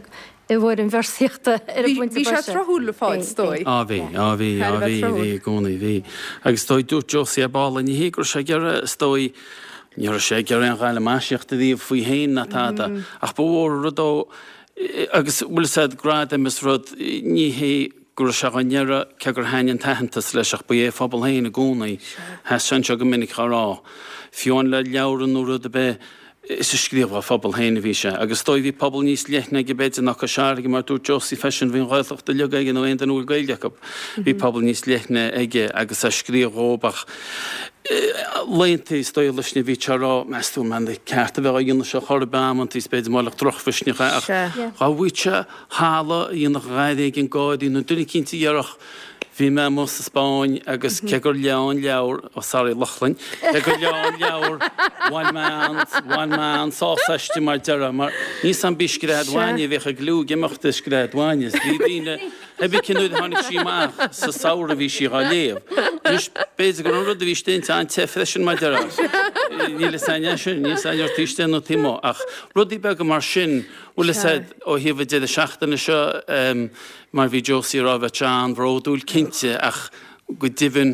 Speaker 8: i bhfoirm véarsaíochta ar an bpointe
Speaker 1: boise. Bhí sé tráthúil, a Pháid, is dóigh.
Speaker 7: Á bhí, á bhí, á bhí, bhí i gcónaí, bhí. Agus is dóigh, dúirt Josie ar ball, ní hé go raibh sé ag iarraidh, is dóigh, ní raibh sé ag iarraidh aon ghalamaisíocht a bhí faoi féin ná tada, ach ba mhór an rud dó, agus bhfuil fhios a'd, gradaim is rud, ní hé go raibh sé dhá n-iarraidh, cé gur thaitnigh an t-aitheantas leis, ach ba é a phobal féin i gcónaí. Sheas sé anseo go minic á rá, fiú amháin le leabhar nó rud ar bith, is ag scríobh dá phobal féin a bhí sé. Agus is dóigh bhí pobal níos leithne aige b'fhéidir ná Cois Fharraige, mar dúirt Josie freisin, bhí an Ghaeltacht uilig aige nó aon duine a bhfuil Gaeilge acu. Bhí pobal níos leithne aige agus é ag scríobh dhóibh ach laethanta is dóigh leis na bhí sé ag rá, meas tú an ceart a bheith á dhéanamh seo chor ar bith amantaí is b'fhéidir molacht drochmhisneach é ach dá bhfaigheadh sé halla a dhéanfadh a dhath éigin gáirí nó duine eicínt a dhéarfadh bhí mé amuigh sa Spáinn agus cé gur léadh an leabhar, oh sorry Lochlainn, cé gur léadh an leabhar bhain mé an, bhain mé an-sásamh aisti mar déarfá mar níl 's a'm b'í Scread Bhainne a bhíodh ag liú ag imeacht i Scread Bhainne is bhí daoine Pé bith cén uair a tháinig sí amach sa samhradh bhí sí dhá léamh. Anois, b'fhéidir go raibh an rud a bhí istigh inti an-te freisin mar déarfá. Níl fhios a'inn é sin, níl fhios a'inn ar taobh istigh nó taobh amuigh. Ach rudaí beaga mar sin, bhfuil fhios a'd, ó thaobh an deireadh seachtaine seo, mar bhí Josie ag rá, bheadh sé an-bhródúil cinnte ach go deimhin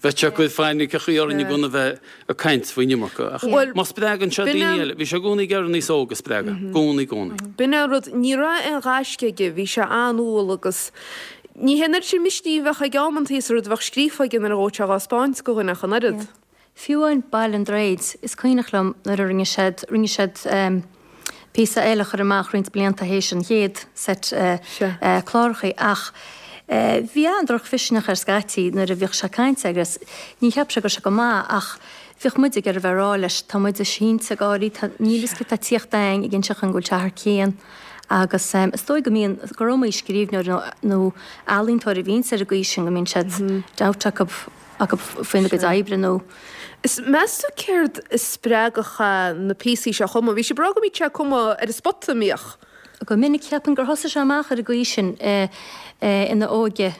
Speaker 7: bheadh sé ag cur fainiceachaí orainn i gcónaí a bheith ag caint faoin iomarca. Ach má spreagann sé daoine eile, bhí sé i gcónaí ag iarraidh an aos óg a spreagadh, i gcónaí, i gcónaí.
Speaker 1: B'in é an rud, ní raibh aon ghaisce aige, bhí sé an-umhal agus ní hé an oiread sin misnigh a bheadh aige amantaí is an rud a bheadh scríofa aige nuair a ghabhadh sé dhá spáint go dhuine ach an oiread.
Speaker 8: Fiú amháin Baile an Droichid, is cuimhneach liom nuair a rinne siad, rinne siad píosa eile a chur amach roinnt blianta théis an chéad set clárachaí ach bhí an-drochmhisneach air scaití nuair a bhíodh sé ag caint agus ní cheap sé go raibh sé go maith ach bhíodh muid ag iarraidh a bheith ag rá leis tá muid ag sínte ag gáirí, tá, níl fhios céard tá ag tíocht a'inn ag inseacht dhúinn go bhfuil sé thar cionn agus is dóigh go mbíonn, gur iomaí scríbhneoir nó nó ealaíontóir a bhíonns ar an gcaoi sin go mbíonn siad doubt acu. acu faoina gcuid oibre nó.
Speaker 1: Is meas tú céard a spreagfadh na píosaí seo a chumadh? Bhí sibh ag rá go mbíodh sé ag cumadh ar an spota, an mbíodh?
Speaker 8: Go minic, cheapfainn gur thosaigh sé amach ar an gcaoi sin ina óige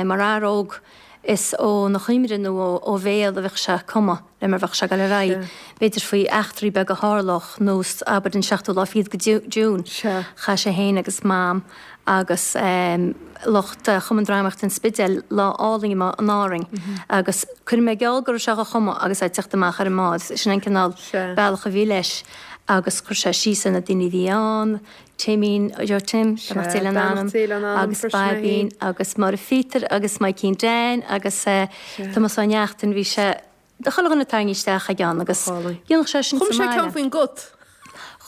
Speaker 8: mar fhear óg is óna chuimhne nó ó bhéal a bheadh sé ag cumadh le mar bheadh sé ag dul ar aghaidh, b'fhéidir faoi eachtraí beaga a tharlódh, nós abair an seachtú lá fichead de June. Chaith sé féin agus Mam agus lucht Chumann Drámaíochta an Spidéil lá álainn amuigh in Árainn agus cuirfidh mé geall go raibh sé á chumadh agus é ag teacht amach ar an mbád. Sin an cineál bealach a bhí leis agus chuir sé síos ar na daoine a bhí ann, Timín, Joe Tim, beannacht Dé lena anam, agus Baibín agus Máire Phíotair agus Maidhcín Dan agus Tomás Ó Neachtain, bhí sé Chuile dhuine tarraingthe isteach aige ann agus dhéanfadh sé sin
Speaker 1: sa mbaile. Chum sé ceann faoin gcut.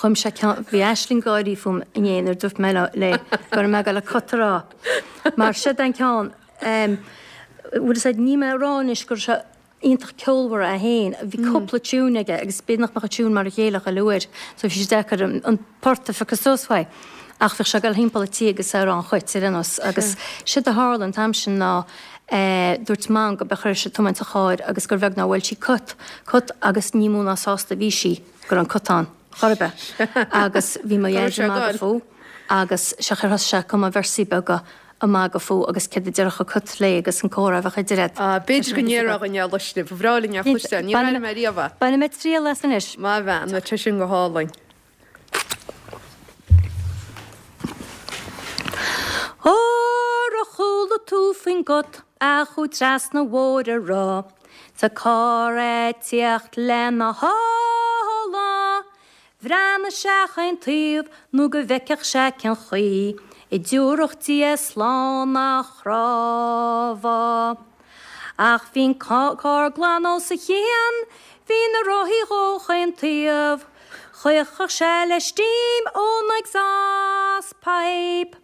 Speaker 8: Chum sé ceann, bhí Aisling ag gáirí fúm inné nuair a dúirt mé léi go raibh mé ag dul an cut a rá. Mar siod an ceann, bhfuil fhios a'd, níl mé ag rá anois go raibh sé iontach ceolmhar é féin, bhí cúpla tiún aige agus b'fhéidir nach mbeadh an tiún mar a chéile chuile uair so bhí sé deacair an port a phiocadh suas uaidh. Ach bhíodh sé ag dul thimpeall an tí agus é ag rá an chuit ar aon nós agus séard a tharla an t-am sin ná dúirt Mam go b'fhéidir chuir sí tiomáint an chairr agus gur bheag nár bhuail sí cut, cut agus ní mó ná sásta a bhí sí go raibh an cut ann chor ar bith. Agus bhí mo Dhaid ag magadh fúithi agus sé chuir thosaigh sé ag cumadh véarsaí beaga ag magadh fúithi agus céard a déarfadh an cut léi agus an comhrá a bheadh idir iad.
Speaker 1: Ah, b'fhéidir go ndéarfadh an Luisne, ba bhreá linn é a chloisteáil, níor airigh mé riamh é.
Speaker 8: Bainfidh mé triail as anois.
Speaker 1: Maith bhean, tá sé sin go hálainn.
Speaker 8: Ar chuala tú faoin gcut a chuaigh trasna Mhór an Ráth? 'S a carr a' tíocht lena thála. Bhreathnaigh sé chaon taobh nó go bhfeicfeadh sé cén chaoi a dtiúrfadh Dia slán a chrábhadh. Ach bhí'n carr glan os a chionn, bhí na rothaí dhó chaon taobh, Chaochfadh sé le steam ón exhaust pipe.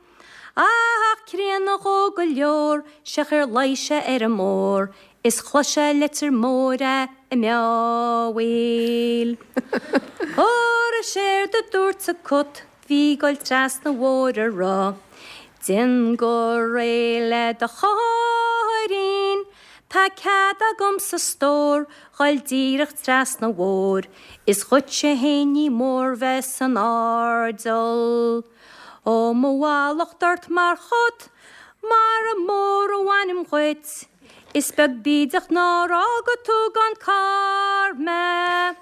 Speaker 8: Ach críonna dhó go leor, 'sea ar luigh sé ar an mbóthar is chlos sé leitir mór a' meámhaíl. Óra séard a dúirt a' cut bhí ag goil trasna an bhóthair a rá, Déan go réidh le do chairrín, tá cead agamsa stór ghoil díreach trasna an bhóthair, is dhuitse fhéin ní mór bheith san airdeall. Ó mo mhallacht ort mar chut, mara mór a bhainim dhuit, is beag bídeach nár fhága tú gan carr mé.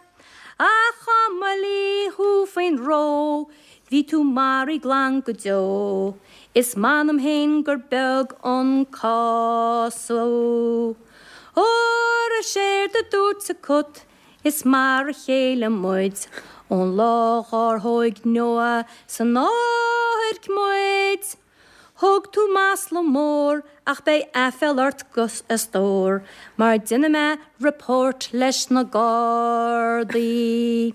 Speaker 8: Ach dá mba lí thú faoin ró, bhí tú maraithe glan go deo, is m'anam fhéin gur beag an cás thú. Óra séard a dúirt a cut, Is mar a chéile muid ón lá dhár thóig Noah san áirc muid. Thug tú masla mór ach beidh aiféal ort a stór mar déanfaidh mé report leis na Gardaí.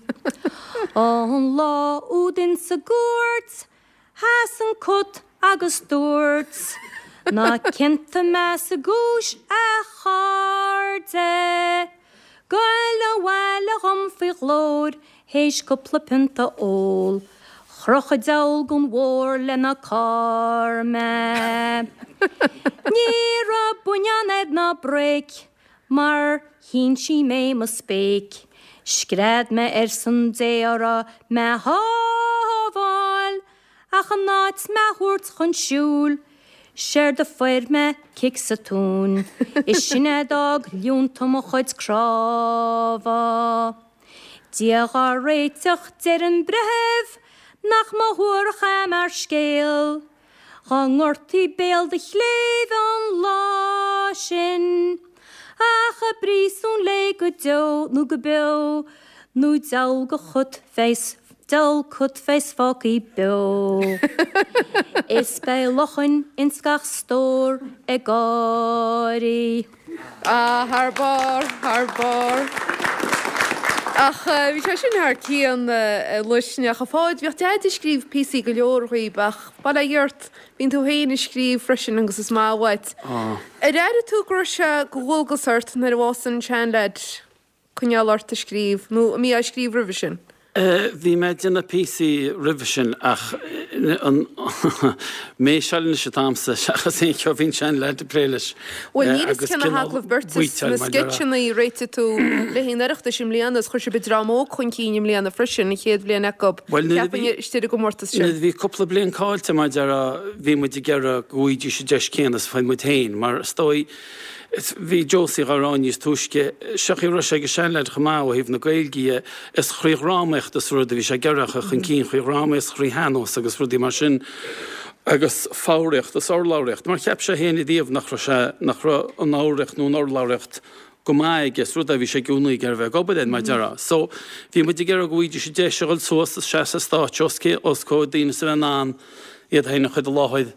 Speaker 8: An lá úd insa gcúirt Sheas an cut agus dúirt, Ná ciontaigh mé sa gcúis, a chairde. Goil abhaile dhom faoi ghlóir théis cúpla pionta ól. Chroch an diabhal gon bhóthar lena carr mé. Ní raibh buinneán air ná bréic mar shínsigh mé mo spéic. Scread mé ar son Dé orthu mé shábháil, ach in áit mé thabhairt chun siúil, séard a fuair mé cic sa tóin, is sin é d'fhág líonta mo chuid crábhadh. Dia dhár réiteach, deir an breitheamh, nach mba shuarach é mar scéal. Dhá ngortaí béal do chléibh an lá sin, ach i bpríosún léi go deo nó go beo, nó diabhal go chut bheas, diabhal cut bheas fágthaí beo. Is beidh luchain ins gach stór ag gáirí.
Speaker 1: Ah, thar barr, thar barr. Ach bhí sé sin thar cionn, a Luisne. Ach a Pháid, bhíodh Deaid ag scríobh píosaí go leor dhaoib ach bail ó Dhia ort, bíonn tú féin ag scríobh freisin agus is maith uait. Ar airigh tú go raibh sé de dhualgas ort nuair a bhásaigh an seanleaid? coinneáil ort ag scríobh, nó an mbítheá ag scríobh roimhe sin?
Speaker 7: Bhí mé ag déanamh píosaí roimhe sin ach an méiseáil anois atá a'msa seachas aon cheo bhí an seanleaid ag plé leis.
Speaker 1: Bhuel níl fhios cé na hagallaimh beirte is na sceitseanna a réitigh tú le haghaidh an Oireachtais i mbliana is chuir sibh an Dream Óg chun cinn i mbliana freisin, an chéad bhliain acu, cheapfainn, istigh ar an gcomórtas
Speaker 7: sin. Nuair a bhí cúpla bliain caillte mar a déarfá bhí muid ag iarraidh go bhfaighidís an deis céanna is a fuair muid féin mar is dóigh Bhí Josie dhá rá níos túisce, seo chaoi a raibh sé ag an seanleaid chomh maith ó thaobh na Gaeilge dhe, is thrí dhrámaíocht is rud a bhí sé ag iarraidh a chur chun cinn, thrí dhrámaíocht is thrí shean-nós agus rudaí mar sin agus foghraíocht is urlabhraíocht, mar cheap sé féin ariamh nach raibh sé, nach raibh an fhoghraíocht nó an urlabhraíocht go maith aige, is rud é a bhí sé i gcónaí ag iarraidh a bheith ag obair air, mar a déarfá. So, bhí muid ag iarraidh go bhfaighidís an deis a dhul suas is seasamh ar stáitse os os comhair daoine is a bheith in ann iad féin a chur i láthair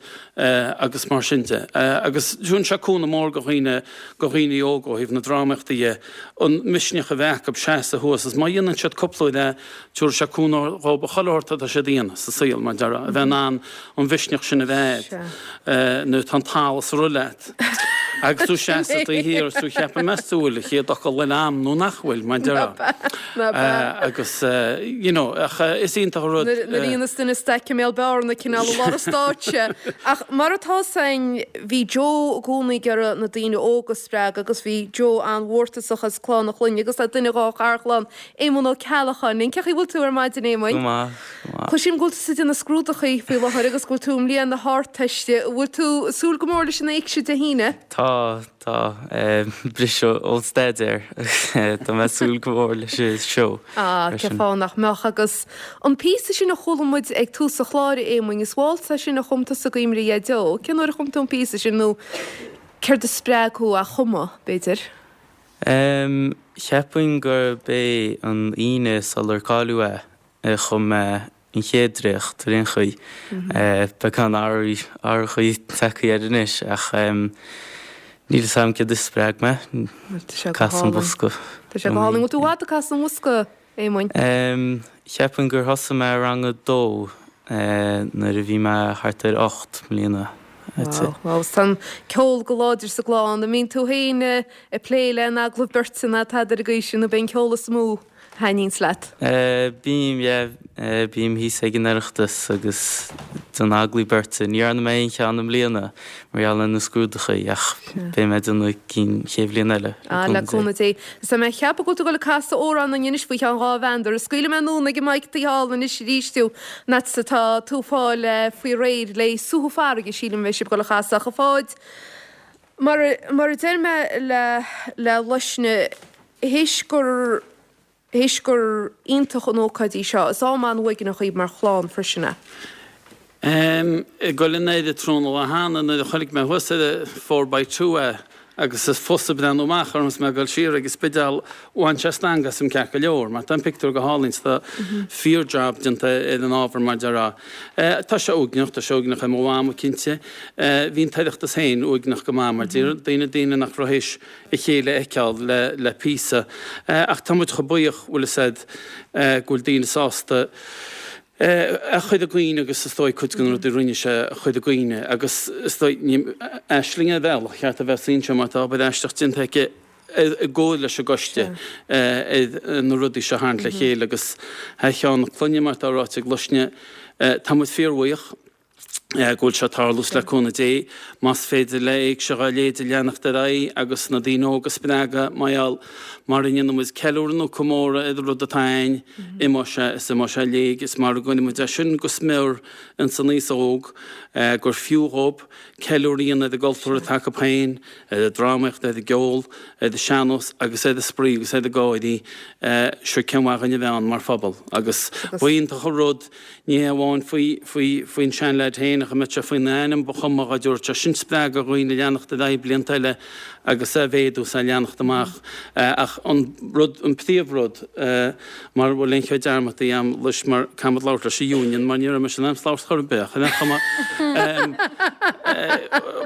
Speaker 7: agus mar sin de. Agus tugann sé cúnamh mór go dhaoine, go dhaoine óga ó thaobh na drámaíochta dhe, an misneach a bheith acu seasamh thuas is má dhéanann siad cúpla uair é, tabharfaidh sé cúnamh dhóibh chuile shórt atá siad a dhéanamh sa saol, mar a déarfá, a bheith in ann an mhisneach sin a bheith agat nuair atá an t-allas ag rith leat agus tú seasamh taobh thiar is tú ag ceapadh meas tú bhfuil an chéad fhocal eile a'm nó nach bhfuil, mar a déarfá. Agus you know, ach is iontach an rud.
Speaker 1: Nuair a dhéanas duine staic i mbéal bearna cineál i lár an stáitse. Ach mar atá 'fhios a'inn, bhí Joe i gcónaí ag iarraidh na daoine óga a spreagadh agus bhí Joe an-mhórtasach as clann a chlainne agus tá duine dhá gharchlann, Éamonn Ó Ceallacháin linn. Cén chaoi a bhfuil tú ar maidin, Éamoinn?
Speaker 9: Go maith, go maith.
Speaker 1: Cloisim go bhfuil tusa ag déanamh scrúdachaí faoi láthair agus go bhfuil tú i mbliain na hArdteiste. An bhfuil tú ag súil go mór leis an éigse Dé hAoine?
Speaker 9: Tá, tá. Briseadh ón staidéar. Tá mé ag súil go mór leis an seó.
Speaker 1: Ah, cén fáth nach mbeadh. Agus an píosa sin a chuala muid ag tús an chláir, a Éamoinn, is waltz é sin a chum tusa i gcuimhne ar Dhaideo. Cén uair a chum tú an píosa sin nó céard a spreag thú á chumadh, b'fhéidir?
Speaker 9: Cheapfainn gurb é an Aoine sular cailleadh é a chum mé an chéad dréacht ar aon chaoi. Beagán athrachaí tagtha air anois ach níl fhios agam céard a spreag mé. Casadh an Bosca.
Speaker 1: Tá sé go hálainn. Bhfuil tú i bhfad ag casadh an bhosca, Éamoinn?
Speaker 9: Cheapfainn gur thosaigh mé i rang a dó nuair a bhí mé thart ar 8 mbliana.
Speaker 1: Wow, wow. Tá an ceol go láidir sa gclann. An mbíonn tú féin ag plé le an agallamh beirte ná tada ar an gcaoi sin nó b'é an ceol is mó? thaitníonns leat?
Speaker 9: Bím, yeah. Bím thíos ag an Oireachtas agus déanamh agallaimh beirte. Ní dhearna mé aon cheann i mbliana mar gheall ar na scrúdachaí ach beidh mé ag déanamh cinn chéad bhliain eile,
Speaker 1: le cúnamh Dé. Le cúnamh Dé. Is tá mé ag ceapadh go bhfuil tú ag dul ag casadh amhrán dúinn anois faoi cheann 2 mheandar. Scaoilfidh mé anonn ag an mic taobh thall anois arís thú, an fhad is atá tú ag fáil faoi réir le Suathadh Farraige, sílim a bheidh sibh ag dul a chasadh ach a Pháid, mar a deir mé le le Luisne, Théis gur théis gur iontach an ócáid í seo, is am an-uaigneach í mar chlann freisin
Speaker 7: é. Ag dul in airde tráthnóna lá cheana nuair a chonaic mé thuas ar an four by two é agus is fusa breathnú amach orm is mé ag dul siar ag an Spidéal bhain sé stangadh asam ceart go leor mar tá an pictiúr go hálainn 's tá fíor job déanta ar an ábhar mar déarfá. Tá sé uaigneach, tá sé uaigneach ar mo mhama cinnte. Bhí an tOireachtas féin uaigneach go maith mar daoine daoine nach raibh théis a chéile a fheiceáil le píosa. Ach tá muid chomh buíoch, bhfuil fhios a'd, go bhfuil daoine sásta é a chur i gcuimhne agus is dóigh cuid de na rudaí a rinne sé a chur i gcuimhne agus is dóigh, ní, Aisling ar bhealach, cheart a bheith anseo mar tá obair aisteach déanta aici i gcomhar leis an gcoiste ar na rudaí seo a tharraingt le chéile agus thar cheann na clainne mar atá ráite ag Luisne, tá muid fíorbhuíoch. go bhfuil sé ag tarlú 's le cúnamh Dé, más féidir le Éigse Ghabh Léide leanacht ar aghaidh agus na daoine óga a spreagadh, mar gheall, mara ndéanann muid ceiliúradh nó comóradh ar an rud atá a'ainn, imeoidh sé is imeoidh sé i léig is mara gcuireann muid é sin go smior ins an aos óg, gur fiú dhób ceiliúradh a dhéanamh ar an gcultúr atá acu féin, ar an drámaíocht, ar an gceol, ar an sean-nós agus ar an spraoi agus ar an gáirí, sure cén mhaith dhuinn a bheith ann mar phobal agus ba iontach an rud Ní hé amháin faoi, faoi, faoin seanleaid féin, ach a mbeadh sé faoina ainm, ba chuma dhá dtabharfadh sé sin spreagadh do dhaoine leanacht ar aghaidh blianta eile agus é a mhéadú is é a leanacht amach. Ach an rud, an príomhrud, mara bhfuil aon cheo dearmadta a'm leis mar caithfimid labhairt leis an Union mar ní raibh mise in ainm 's labhairt chor ar bith ach ar aon chuma,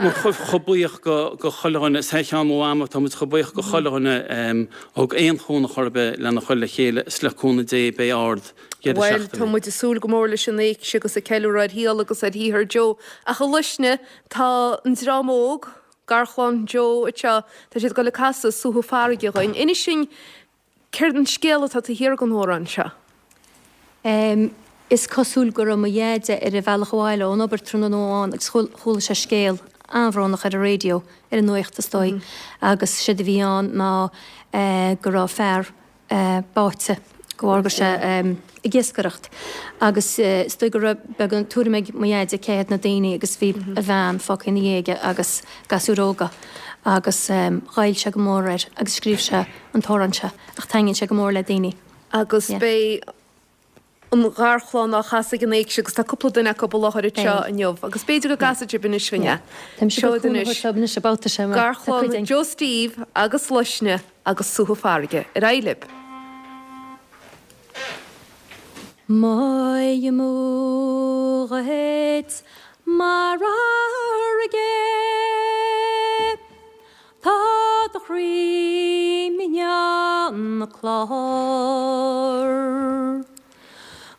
Speaker 7: muid chomh buíoch go, go chuile dhuine, is thar cheann mo mhama, tá muid chomh buíoch go chuile dhuine a thug aon chúnamh chor ar bith lena chur le chéile is le cúnamh Dé beidh ard
Speaker 1: Bhuel, tá muid ag súil go mór leis an éigse agus ag ceiliúradh ar shaol agus ar shaothar Joe. Ach a Luisne, tá an dream óg, garchlann Joe anseo, tá siad ag dul ag casadh Suathadh Farraige dhuinn. Inis dúinn céard an scéal atá taobh thiar den amhrán seo.
Speaker 8: Is cosúil go raibh mo dheaide ar a bhealach abhaile ón obair tráthnóna amháin agus chuala sé scéal an-bhrónach ar an raidió, ar an nuacht is dóigh, agus séard a bhí ann ná go raibh fear báite de bharr go raibh sé ag iascaireacht agus is dóigh go raibh beagán tuairim ag mo dheaide cé hiad na daoine agus bhí a bhean fágtha ina dhiaidh aige agus gasúir óga agus ghoill sé go mór air agus scríobh sé an t-amhrán seo ach taitníonn sé go mór le daoine.
Speaker 1: Agus beidh an gharchlann á chasadh ag an éigse agus tá cúpla duine acu i láthair anseo inniu agus b'fhéidir go gcasfaidh sibh anois dúinn é. Seoid anois. Garchlann Joe Steve agus Luisne agus Suathadh Farraige. Ar aghaidh libh.
Speaker 8: Moy amú dhuit mar fharraige. Tá do chroí mionn na clár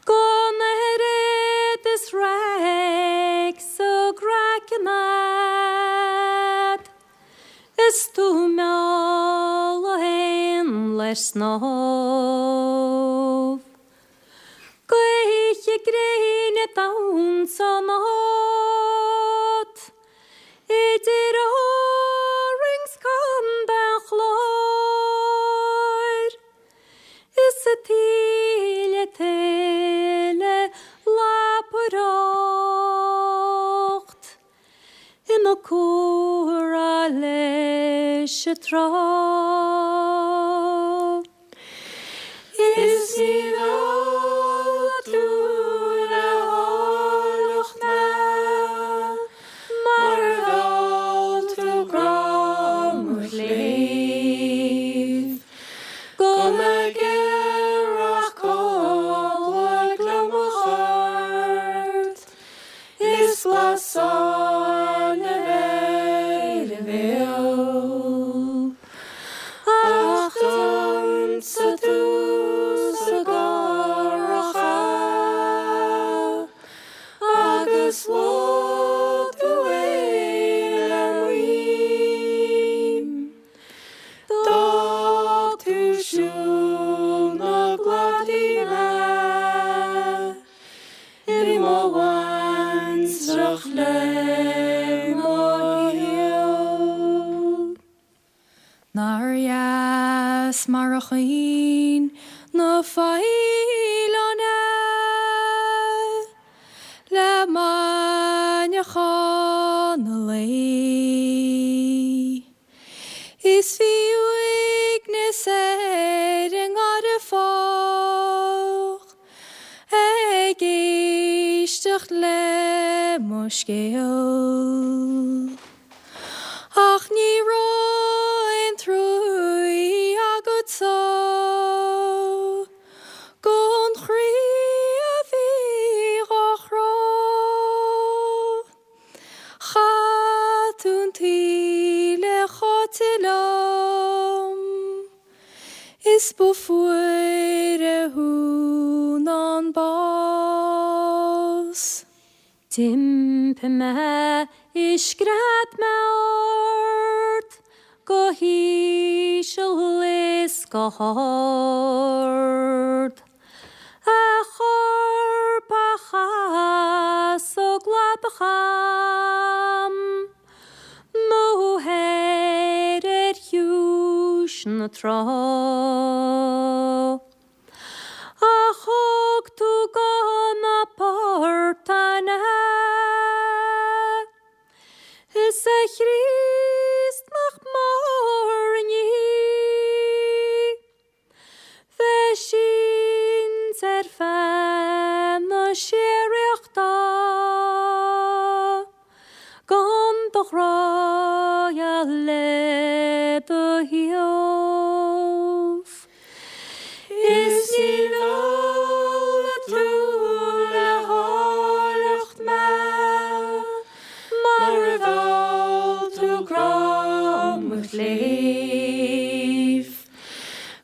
Speaker 8: Gan oiread is raic sa gcraiceann a'd Is tú mealladh éan le snámh Gaoithe gréine damhsa ionat Idir Árainn 's Contae an Chláir Is a taoille tuile lapaireacht Ina comhrá leis an trá.
Speaker 10: Is ní mheall tú le háilleacht mé mar a mheall tú grá mo chléibh. Nár dheas mar a chaoin na faoileáin é le maidneachan an lae. Is bhí uaigneas ar an ngarrdha fách ag éisteacht le mo scéal. Ach ní raibh aon truaí agatsa gon chroí a bhí dhá chrá. Chaith tú an taoille cháite liom is ba fuaire thú ná an bás.
Speaker 8: D'iompaigh mé is scread mé ort go híseal is go hard. A chorp a chasadh cladach cham nó thoir ar chiúis na trá. Ach thug tú go na portáin é. Is a Chríost nach mór an ní bheith sínte ar feadh na síoraíochta gan do ghrá le do thaobh.
Speaker 10: Is ní mheall tú le háilleacht mé mar a mheall tú grá mo chléibh.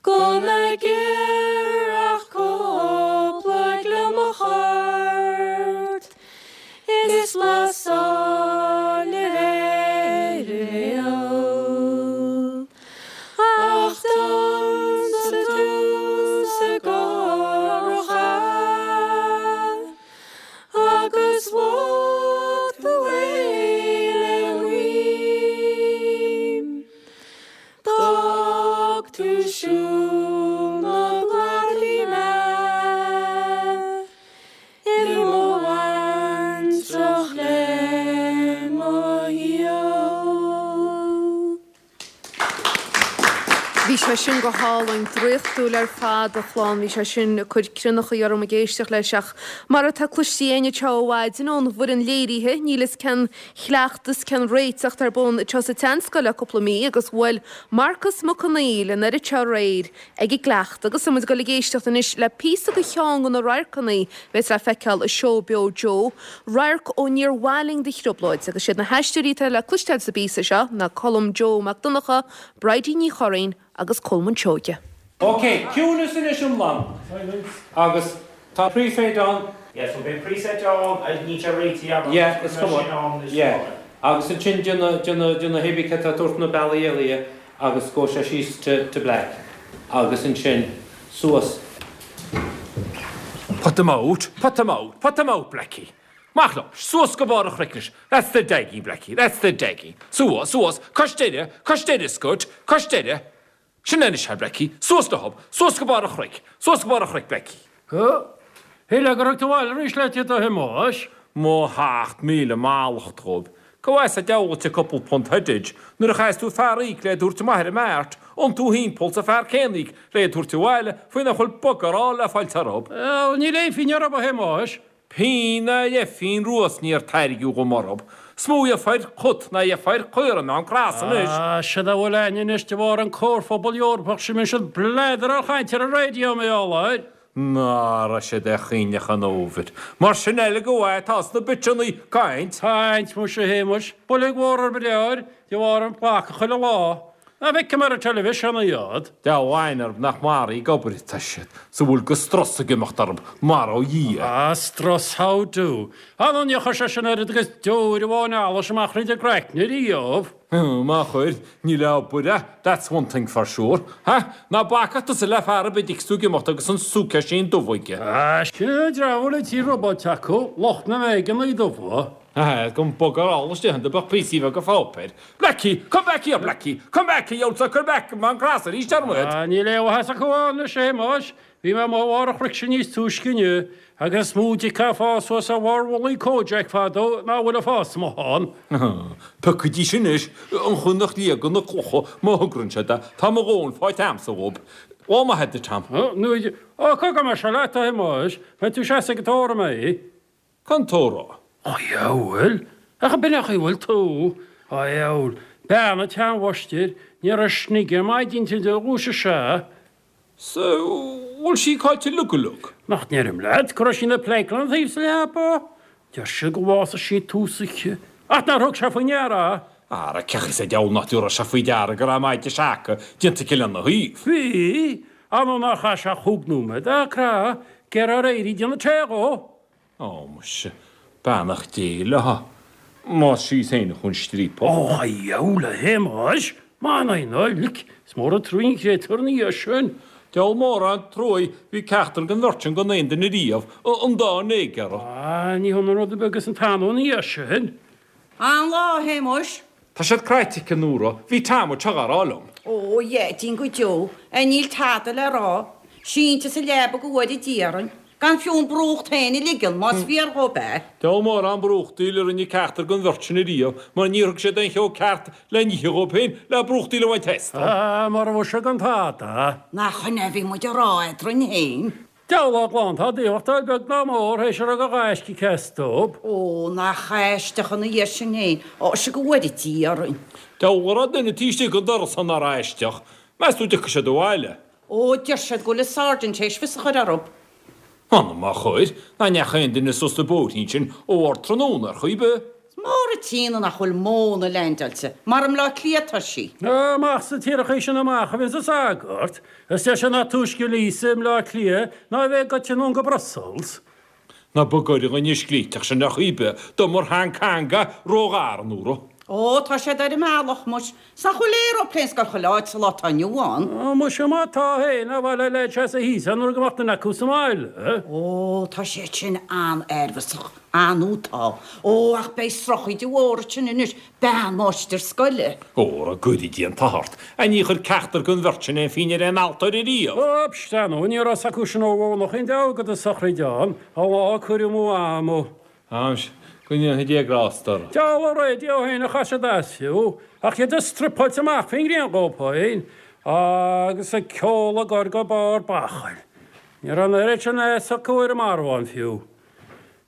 Speaker 10: Gan ag iarraidh ach cúpla gliomach ort is blas áille ar a bhéal. Ach d'ionsaigh tú sa gcarraig agus bháigh tú é le guaim. D'fhág tú siúl na gcladaí mé. I mo bhaintreach le mo shaol.
Speaker 1: Bhí sé sin go hálainn, draíochtúil ar fad, a chlann. Bhí sé sin ag cur crionnachaí orm ag éisteacht leis ach mar atá cloiste againn anseo ó mhaidin ón bhfoireann léirithe, níl fhios cén chleachtas, cén réiteacht ar bun anseo sa tSeanscoil le cúpla mí agus bhuail Marcas Mac Conghail an oiread seo aréir ag an gcleachtadh agus tá muid ag dul ag éisteacht anois le píosa de cheann de na radharcanna a bheas le feiceáil i Seó Beo Joe, radharc ó Níor Mhaith Linn do Thrioblóid agus siad na haisteoirí atá le cloisteáil sa bpíosa seo ná Colm Joe Mac Donncha, Bridie Ní Churraoin agus Colmán Seoige.
Speaker 3: Ok, ciúnas anois iomlán agus tá pre-fade ann.
Speaker 11: Yeah, so beidh preset ann, níl sé réitithe agam,
Speaker 3: Yeah, is cuma. Yeah, agus ansin déanamh, déanamh, déanamh hébí cad tá tabhairt na bealaí eile agus go sé síos to, to black agus ansin suas. Put them out, put them out, put them out, Blackie. Amach leo, suas go barr an chnoic anois. That's the daggy, Blackie, that's the daggy. Suas, suas, cois deireadh, cois deireadh, Scut, cois deireadh. Sin é anois é, Blackie. Suas leo, suas go barr an chnoic, suas go barr an chnoic, Blackie.
Speaker 12: Shílfeá gur thug tú abhaile arís leat iad a Shéamais.
Speaker 3: Mo sheacht míle mallacht dhóibh. Cá bhfas a deabhal duit cúpla punt headage nuair a chaithfeas tú fear a íoc le iad a thabhairt amach ar an mart, iontú thimpeall 's an fear céanna a íoc le iad a thabhairt abhaile faoi nach bhfuil bugger all le fáilt orthu.
Speaker 12: Bhuel, níl aon phingin orthu, a Shéamais.
Speaker 3: Pingin ná leathphingin rua 's níor tairgeadh dhom orthu. 'S mó a gheofar cut ná a gheofar caora i mBeann Cross anois.
Speaker 12: Ah, siad a bhfuil a'ainn anois de bharr an Comharphobal Eorpach sin, mbíonn siad bladar chaint ar an raidió, mar gheall air.
Speaker 3: Ná raibh siad ar choinleach an fhómhair. Mar sin eile go bhfaighe atá sna bitseannaí caint.
Speaker 12: Caint, muise, a Shéamais, boilg mhór ar mo de bharr an phlaca chuile lá. Ná feicim ar an teilifísean iad.
Speaker 3: Deamhan orthu nach maraithe ag obair atá siad, 's a bhfuil go strus ag imeacht orthu, mar ó Dhia.
Speaker 12: Ah, strus, how do? Ah, nó níor chuir sé sin oiread agus deoir amháin allais amach thríd a gcraicne riamh.
Speaker 3: Má chuir, ní le obair é, that's one thing for sure. Ha? Ná bacadh tusa le fear ar bith a d'fheicfeas tú ag imeacht agus an suitcase dubh aige.
Speaker 12: Ah, sin an dream a bhfuil an tír robáilte acu, lucht na mbéigeannaí dubha.
Speaker 13: Aha, gan bugger all istigh iontu ach píosaí beaga pháipéir. Blackie! Come back here, Blackie! Come back, you old sucker back! Má an cras arís orm iad!
Speaker 12: Ah, níl aon mhaitheas acu ann anois, a Shéamais. Bhí mé amuigh ar bharr an chnoic sin níos túisce inniu, agus is mó dic atá ag fás suas ar bharr mhullaigh Kojak fadó ná a bhfuil ag fás amuigh ann.
Speaker 13: Piocaidís anois an chaoi nach liagann na clocha má thogrann siad é. Tá mo dhóthain faighte a'msa dhób. Lá maith duit, Tom.
Speaker 12: Ó, cogar mar seo leat, a Shéamais. Beidh tú seasta ag an tórramh mé.
Speaker 13: Cén tórramh?
Speaker 12: A dhiabhail! Ach ab in é an chaoi a bhfuil tú? A dhiabhail! Bean an tseanmháistir, ní raibh snig ar maidin inti ó dhúisigh sé.
Speaker 13: 'S bhfuil sí caillte uilig go uilig?
Speaker 12: Nach ndeirim leat go raibh sí ina pleidhce lena thaobh sa leaba? Deir siad gur bhásaigh sí tús oíche, ach nár thug sé faoi ndeara é.
Speaker 13: Ara, cén chaoi sa diabhal nach dtabharfadh sé faoi deara go raibh maide seaca déanta aici lena thaobh?
Speaker 12: Bhí, ar ndóigh nár chaith sé ach chúig nóiméad ag crá, ag iarraidh éirí ag déanamh tae dhó.
Speaker 13: Ó, muise, beannacht Dé léi, más sí féin a chun striapach.
Speaker 12: Ó, a dhiabhail, a Shéamais, m'anam ná lic, is mór an truaí an créatúr ina dhiaidh sin.
Speaker 13: Diabhal mór an truaí, bhí ceachtar den bheirt sin gan aon duine riamh, an dá néigear.
Speaker 12: Á, ní hionann rud ar bith agus an t-anó ina dhiaidh sin.
Speaker 4: An-lá, a Shéamais.
Speaker 13: Tá siad cráite aici, a Nóra, bhí Tom anseo dhá rá liom.
Speaker 4: Ó, a Dheaidín go deo, a níl tada le rá. Sínte sa leaba go bhfóire Dia orainn. Gan fiú an brúcht féin a ligean, más fíor dhób é.
Speaker 13: Diabhal mór an brúchtaíl a rinne ceachtar den bheirt sin ariamh, mar níor thug siad aon cheo ceart le n-ithe dhóibh féin le brúchtaíl a bhaint astu.
Speaker 12: Á, mara bhfuil sé gan tada.
Speaker 4: Nach in é a bhí muid a rá eadrainn féin?
Speaker 12: Diabhal á gclann, tá daochtáil beag ná mór théis a raibh de ghaisce aici astu.
Speaker 4: Ó, nach aisteach ina dhiaidh sin féin. Ó, sea go bhfóire Dia orainn.
Speaker 13: Diabhal a raibh duine taobh istigh den doras san nár aisteach. Meas tú an dtiocfaidh siad abhaile?
Speaker 4: Ó, deir siad go bhfuil an sergeant théis fios a chur orthu.
Speaker 13: M'anam má chuir, ná ndeachaigh aon duine suas an bóithrín sin ó ardtráthnóna ar chaoi ar bith.
Speaker 4: Is mór an t-ionadh nach bhfuil móna leaindeáilte, mar i mBleá Cliath atá sí.
Speaker 12: Amach sna tíreachaí sin amach a bhíonns an sagart, is deir sé nach túisce Lisa i mBleá Cliath ná a bheidh goite anonn go Brussels.
Speaker 13: Ná bog ar dhuine scríteach sin ar chaoi ar bith do mar Hong Kong ró-ghar, a Nóra.
Speaker 4: Ó, tá siad ar an mbealach, muis. 'S nach bhfuil aeroplane ag goil chuile áit sa lá atá inniu ann.
Speaker 12: Ó, muise, má tá féin, ar mhaith le leid seasamh thíos ann nuair go mbeadh duine acu sa mbaile.
Speaker 4: Ó, tá siad sin an-neirbhíseach, ar ndóigh tá. Ó, ach beidh srochíde mhór ansin anois, bean máistir scoile.
Speaker 13: Óra, go gcuire Dia an t-ádh ort. A ní chuir ceachtar den bheirt sin aon phínn ar aon altóir ariamh.
Speaker 12: Ó, psst, ar ndóigh, ní raibh 's acu sin ó mhónach aon deabhadh agat an sochraid ann, an lá a cuireadh amú ama.
Speaker 13: Anois, go ndéanfaidh Dia grásta orthu.
Speaker 12: Diabhal an raidió féin a chaith siad as fiú, ach iad ag struipeáilt amach faoin ngrian dhóibh féin, agus an ceol á gcur go barr bachall. Ní raibh an oiread sin fhios acu ar an marbhán fiú.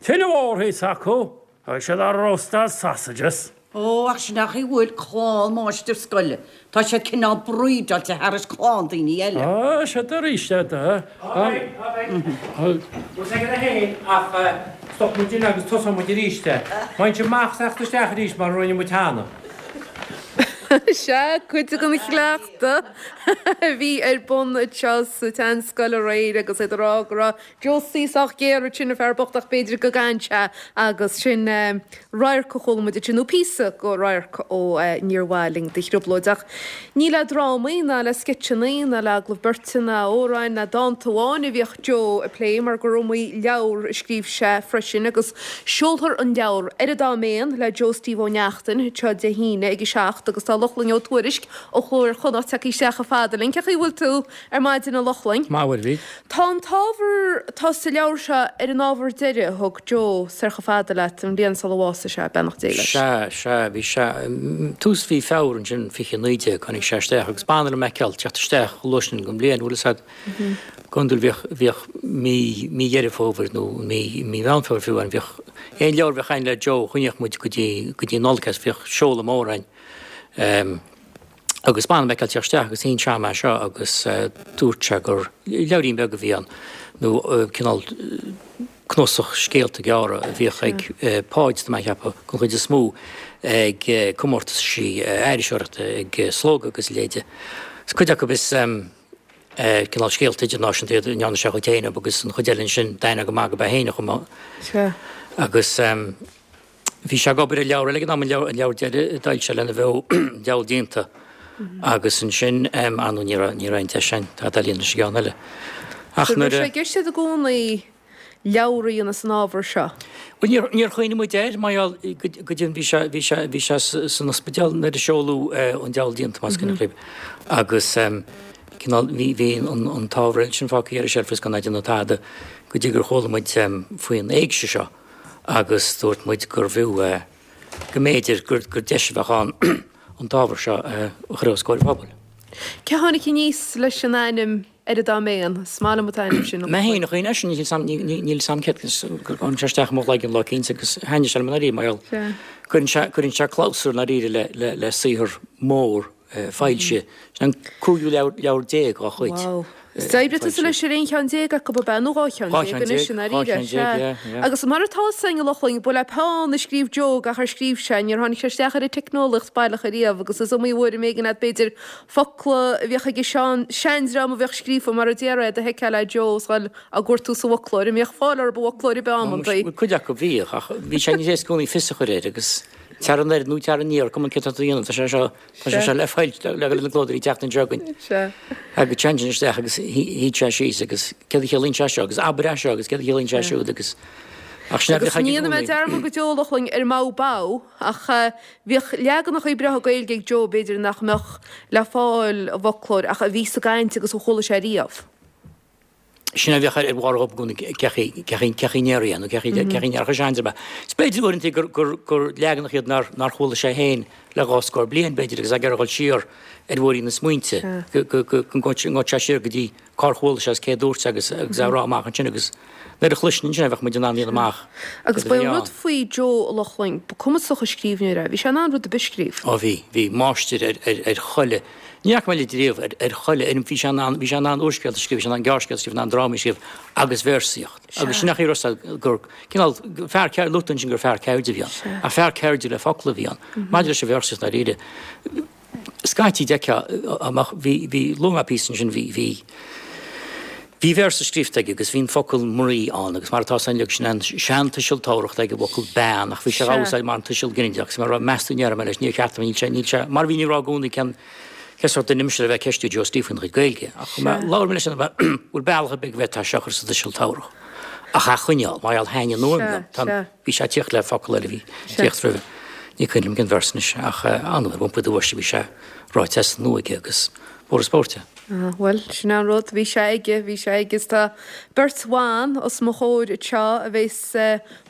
Speaker 12: Tine mhór thíos acu, Agus iad ag róstáil sausages.
Speaker 4: Ó, ach sin é an chaoi a bhfuil clann máistir scoile. Tá siad cineál brídeáilte thairis clann daoine eile.
Speaker 12: Á, siad arís é do.
Speaker 11: Á, beidh, á, beidh. Bhfuil sé aige féin ach stop muid in agus tosóidh muid arís é. Bain sibh amach is teacht isteach arís mar a rinne muid cheana.
Speaker 1: Sea, cuid den chleachtadh a bhí ar bun anseo sa tSeanscoil aréir agus iad ag rá go raibh Josie sách géar ansin, an fear bocht, ach b'fhéidir go gcaitheann sé agus sin radharc a chuala muid ansin, nó píosa go radharc ó Níor Mhaith Linn do Thrioblóid. Ach ní le drámaí ná le sceitseanna ná le agallaimh beirte ná amhráin ná dánta amháin a bhíodh Joe ag plé mar gur iomaí leabhar a scríobh sé freisin agus seolfar an leabhar Ar an Dá Méan le Joe Steve Ó Neachtain anseo Dé hAoine ag a 7 agus tá Lochlainn Ó Tuairisg ó Chló Iar-Chonnacht tagtha isteach chomh fada linn. Cén chaoi a bhfuil tú ar maidin a Lochlainn?
Speaker 14: Maith, a Mhaighread.
Speaker 1: Tá an t-ábhar atá sa leabhar seo ar an ábhar deiridh a thug Joe soir chomh fada leat an bhliain sula bhásaigh sé, beannacht Dé leis.
Speaker 14: Sea, sea, bhí sé, tús mhí Feabhra ansin, 2019, tháinig sé isteach agus b'annamh liom a fheiceáil teacht isteach chomh luath sin den bhliain, bhfuil fhios a'd. Go hiondúil bhíodh, bhíodh mí, mí Dheireadh Fómhair nó mí, mí Mheán Fómhair fiú ann, bhíodh aon leabhar a bheadh a'inn le Joe, choinníodh muid go dtí, go dtí Nollaig é, bhíodh seoladh mór a'inn. Agus b'annamh liom a fheiceáil teacht isteach agus shín sé a'm é seo agus dúirt sé gur leabhairín beag a bhí ann nó cineál cnuasach scéalta gearra a bhíodh ag Páid, tá mé a cheapadh, den chuid is mó ag comórtaisí iriseoireachta, ag Slógadh agus a leithéide. Cuid acu is cineál scéalta idirnáisiúnta iad a ndearna sé a chuid féin agus an chuid eile ansin d'aithneofá go maith gurb é féin a chum. Agus. Bhí sé ag obair ar leabhar eile ag an am, an leabhar deiridh a d'fhoilsigh sé lena bheo, Diabhal Díonta, agus ansin, ar ndóigh, ní raibh, ní raibh aon deis againn tada a líonadh leis an gceann eile.
Speaker 1: Ach nuair a. Bhí sé i gceist i gcónaí. leabhar a dhéanamh as an ábhar seo?
Speaker 14: Bhuel, níor, níor chuimhnigh muid air, mar gheall, go deimhin bhí sé, bhí sé, bhí sé san ospidéal nuair a seoladh An Diabhal Déanta, más cuimhin libh. Agus cineál, bhí, bhí an, an t-ábhar eile sin fágtha ar an tseilf is gan é ag déanamh tada go dtí gur chuala muid faoin éigse seo agus dúirt muid gurbh fhiú, go mb'fhéidir gur, gur deis a bheadh ann an t-ábhar seo a chur os comhair an phobail.
Speaker 1: Cé tháinig aníos leis an ainm Ar an Dá Mhéan? Is maith liom an t-ainm sin.
Speaker 14: Mé féin a chuimhnigh air sin, níl 'fhios a'm, níl 'fhios a'm céard, gur tháinig sé isteach i mo chloigeann lá eicínt agus thaitnigh sé liom i ndáiríre mar gheall, cuireann sé, cuireann sé clabhsúr i ndáiríre le, le, le saothar mór foilsithe. Sin an cúigiú leabhar, leabhar dá chuid.
Speaker 1: Wow. Is d'oibrigh tusa leis ar aon cheann déag acu ab ea, nó 12 cheann anois i ndáiríre, sea. Agus mar atá 'fhios a'inn a Lochlainn, ba le peann a scríobh Joe gach ar scríobh sé, níor tháinig sé isteach ar an teicneolaíocht baileach ariamh agus is iomaí uair a mb'éigean leat b'fhéidir focla a bhíodh ag an seandream a bhíodh scríofa mar a déarfá iad a sheiceáil le Joe is dhul á gcuartú sa bhfoclóir. An mbíodh fáil orthu i bhfoclóir ar bith amantaí?
Speaker 14: Bhuel, cuid acu bhíodh, ach bhí sé níos éasca i gcónaí fios a chur air agus tar anoir nó tar aniar, cuma céard atá tú a dhéanamh, tá sé seo, tá sé seo le fáil le go na clódóirí an tseachtain seo chugainn.
Speaker 1: Sea.
Speaker 14: Agus téann sin isteach agus shuíodh sé síos agus céard a chiallaíonn sé seo agus abair é seo agus céard a chiallaíonn sé siúd agus
Speaker 1: ach sin é a Agus bhíodh aige i ní dhéanfaidh mé gcónaí. dearmad go deo a Lochlainn ar Mó Bó ach Bhíodh leaganacha breátha Gaeilge ag Joe, b'fhéidir, nach mbeadh le fáil i bhfoclóir ach a bhí sa gcaint agus a chuala sé riamh.
Speaker 14: Sin é a bhíodh ar bharr a gcónaí, cé chaoi a ndéarfaí é nó cé chaoi a ndéarfadh seandream é. Is b'fhéidir uaireanta gur, gur, gur leaganacha iad nár, nár chuala sé féin le dhá scór bliain, b'fhéidir, agus é ag iarraidh a dhul siar ar bhóithrín na smaointe, go, go, go, go ngabhfadh sé siar go dtí cár chuala sé is cé a dúirt agus agus é a rá amach ansin agus nuair a chloisinn ansin é bheadh muid in ann a dhéanamh amach
Speaker 1: Agus ba é an rud faoi Joe, a Lochlainn, ba cumasach an scríbhneoir é. Bhí sé in ann rud ar bith a scríobh.
Speaker 14: Ó bhí, bhí, máistir ar, ar, ar chuile, ní fhaca mé litir riamh, ar, ar chuile fhoirm, bhí sé in ann, bhí sé in ann úrscéalta a scríobh, bhí sé in ann gearrscéalta a scríobh, in ann drámaí a scríobh agus véarsaíocht. Agus sin é an chaoi a raibh gur, cineál, fear ceirde, luaigh tú ansin gur fear ceirde a bhí ann, ach fear ceirde le focla a bhí ann. Maidir leis an véarsaíocht dáiríre, Scaití d'fheicfeá amach, bhí, bhí, luaigh mé píosa ansin, bhí, bhí, bhí véarsa scríobhta aige agus bhí an focal mnaoi ann agus mar atá san uilig sin an seantuiseal tabharthach ag an bhfocal bean ach bhí sé á úsáid mar an tuiseal ginideach agus mar a raibh meas tú ndéarfaidh mé leis níor cheart dom níl sé níl sé mar a bhínn ag rá i gcónaí cén cén sórt duine mise le bheith ag ceistiú Joe Steve faoina chuid Gaeilge ach labhair mé leis an bhfuil bealach ar bith go bhféadfá seo a chur sa tuiseal tabharthach ach a choinneáil mar gheall thaitnigh an fhuaim liom tá an Bhí sé ag tíocht le focal eile a bhí ag tíocht roimhe. Ní cuimhin liom cén véarsa anois ach an uair iompaigh do bhois a bhí sé ráite as an nua aige agus b'fhuar an spórt é.
Speaker 1: Ah, bhuel, sin é an rud, bhí sé aige, bhí sé aige is tá beirt bhan os mo chomhair anseo a bheas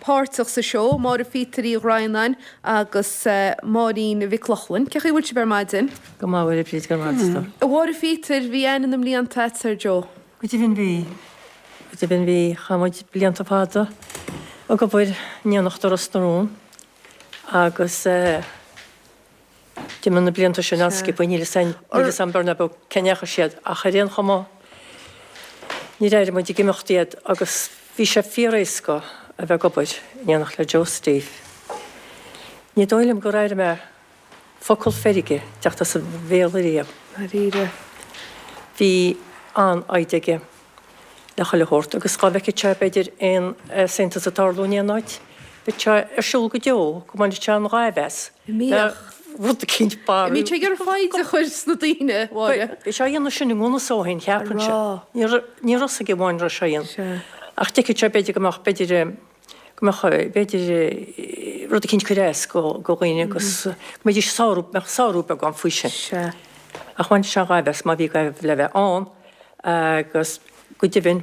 Speaker 1: páirteach sa seó, Máire Phíotair Uí Dhroighneáin agus Máirín Mhic Lochlainn. Cén chaoi a bhfuil sibh ar maidin?
Speaker 15: Go maith, a Bhríd, go raibh maith agat.
Speaker 1: A Mháire Phíotair, bhí aithne na mblianta agat ar Joe.
Speaker 15: Go deimhin bhí. Go deimhin bhí. Chaith muid blianta fada ag obair in éineacht i Ros na Rún agus d'imigh na blianta sin an-sciobtha, níl 'fhios níl 'fhios a'm beag ná beag cá ndeachaigh siad ach ar aon chuma níor airigh muid ag imeacht iad agus bhí sé fíor-éasca a bheith ag obair in éineacht le Joe Steve. Ní dóigh liom gur airigh mé focal feirge teacht as a bhéal ariamh.
Speaker 1: Dáiríre.
Speaker 15: Bhí an-fhoighde aige le chuile shórt agus dhá bhfeicfeadh sé b'fhéidir aon easaontas ag tarlú in aon áit, bheadh sé ar siúl go deo go mbainfeadh sé an ghaimh as le rud eicínt
Speaker 1: barr. Bhí sé ag iarraidh foighde a chur sna daoine, a Mháire.
Speaker 15: Bhí sé á dhéanamh sin i ngan fhios dó féin, cheapfainnse. Ní raibh fhios aige amháin a raibh sé a dhéanamh. Ach d'fheicfeadh sé b'fhéidir go mbeadh, b'fhéidir, go mbeadh, b'fhéidir, rud eicínt ag cur as do dhaoine agus go mbeidís ag sárú, mbeadh sárú beag ann faoi sin.
Speaker 1: Sea.
Speaker 15: Ach bhain sé an ghaimh as má bhí gaimh le bheith ann agus go deimhin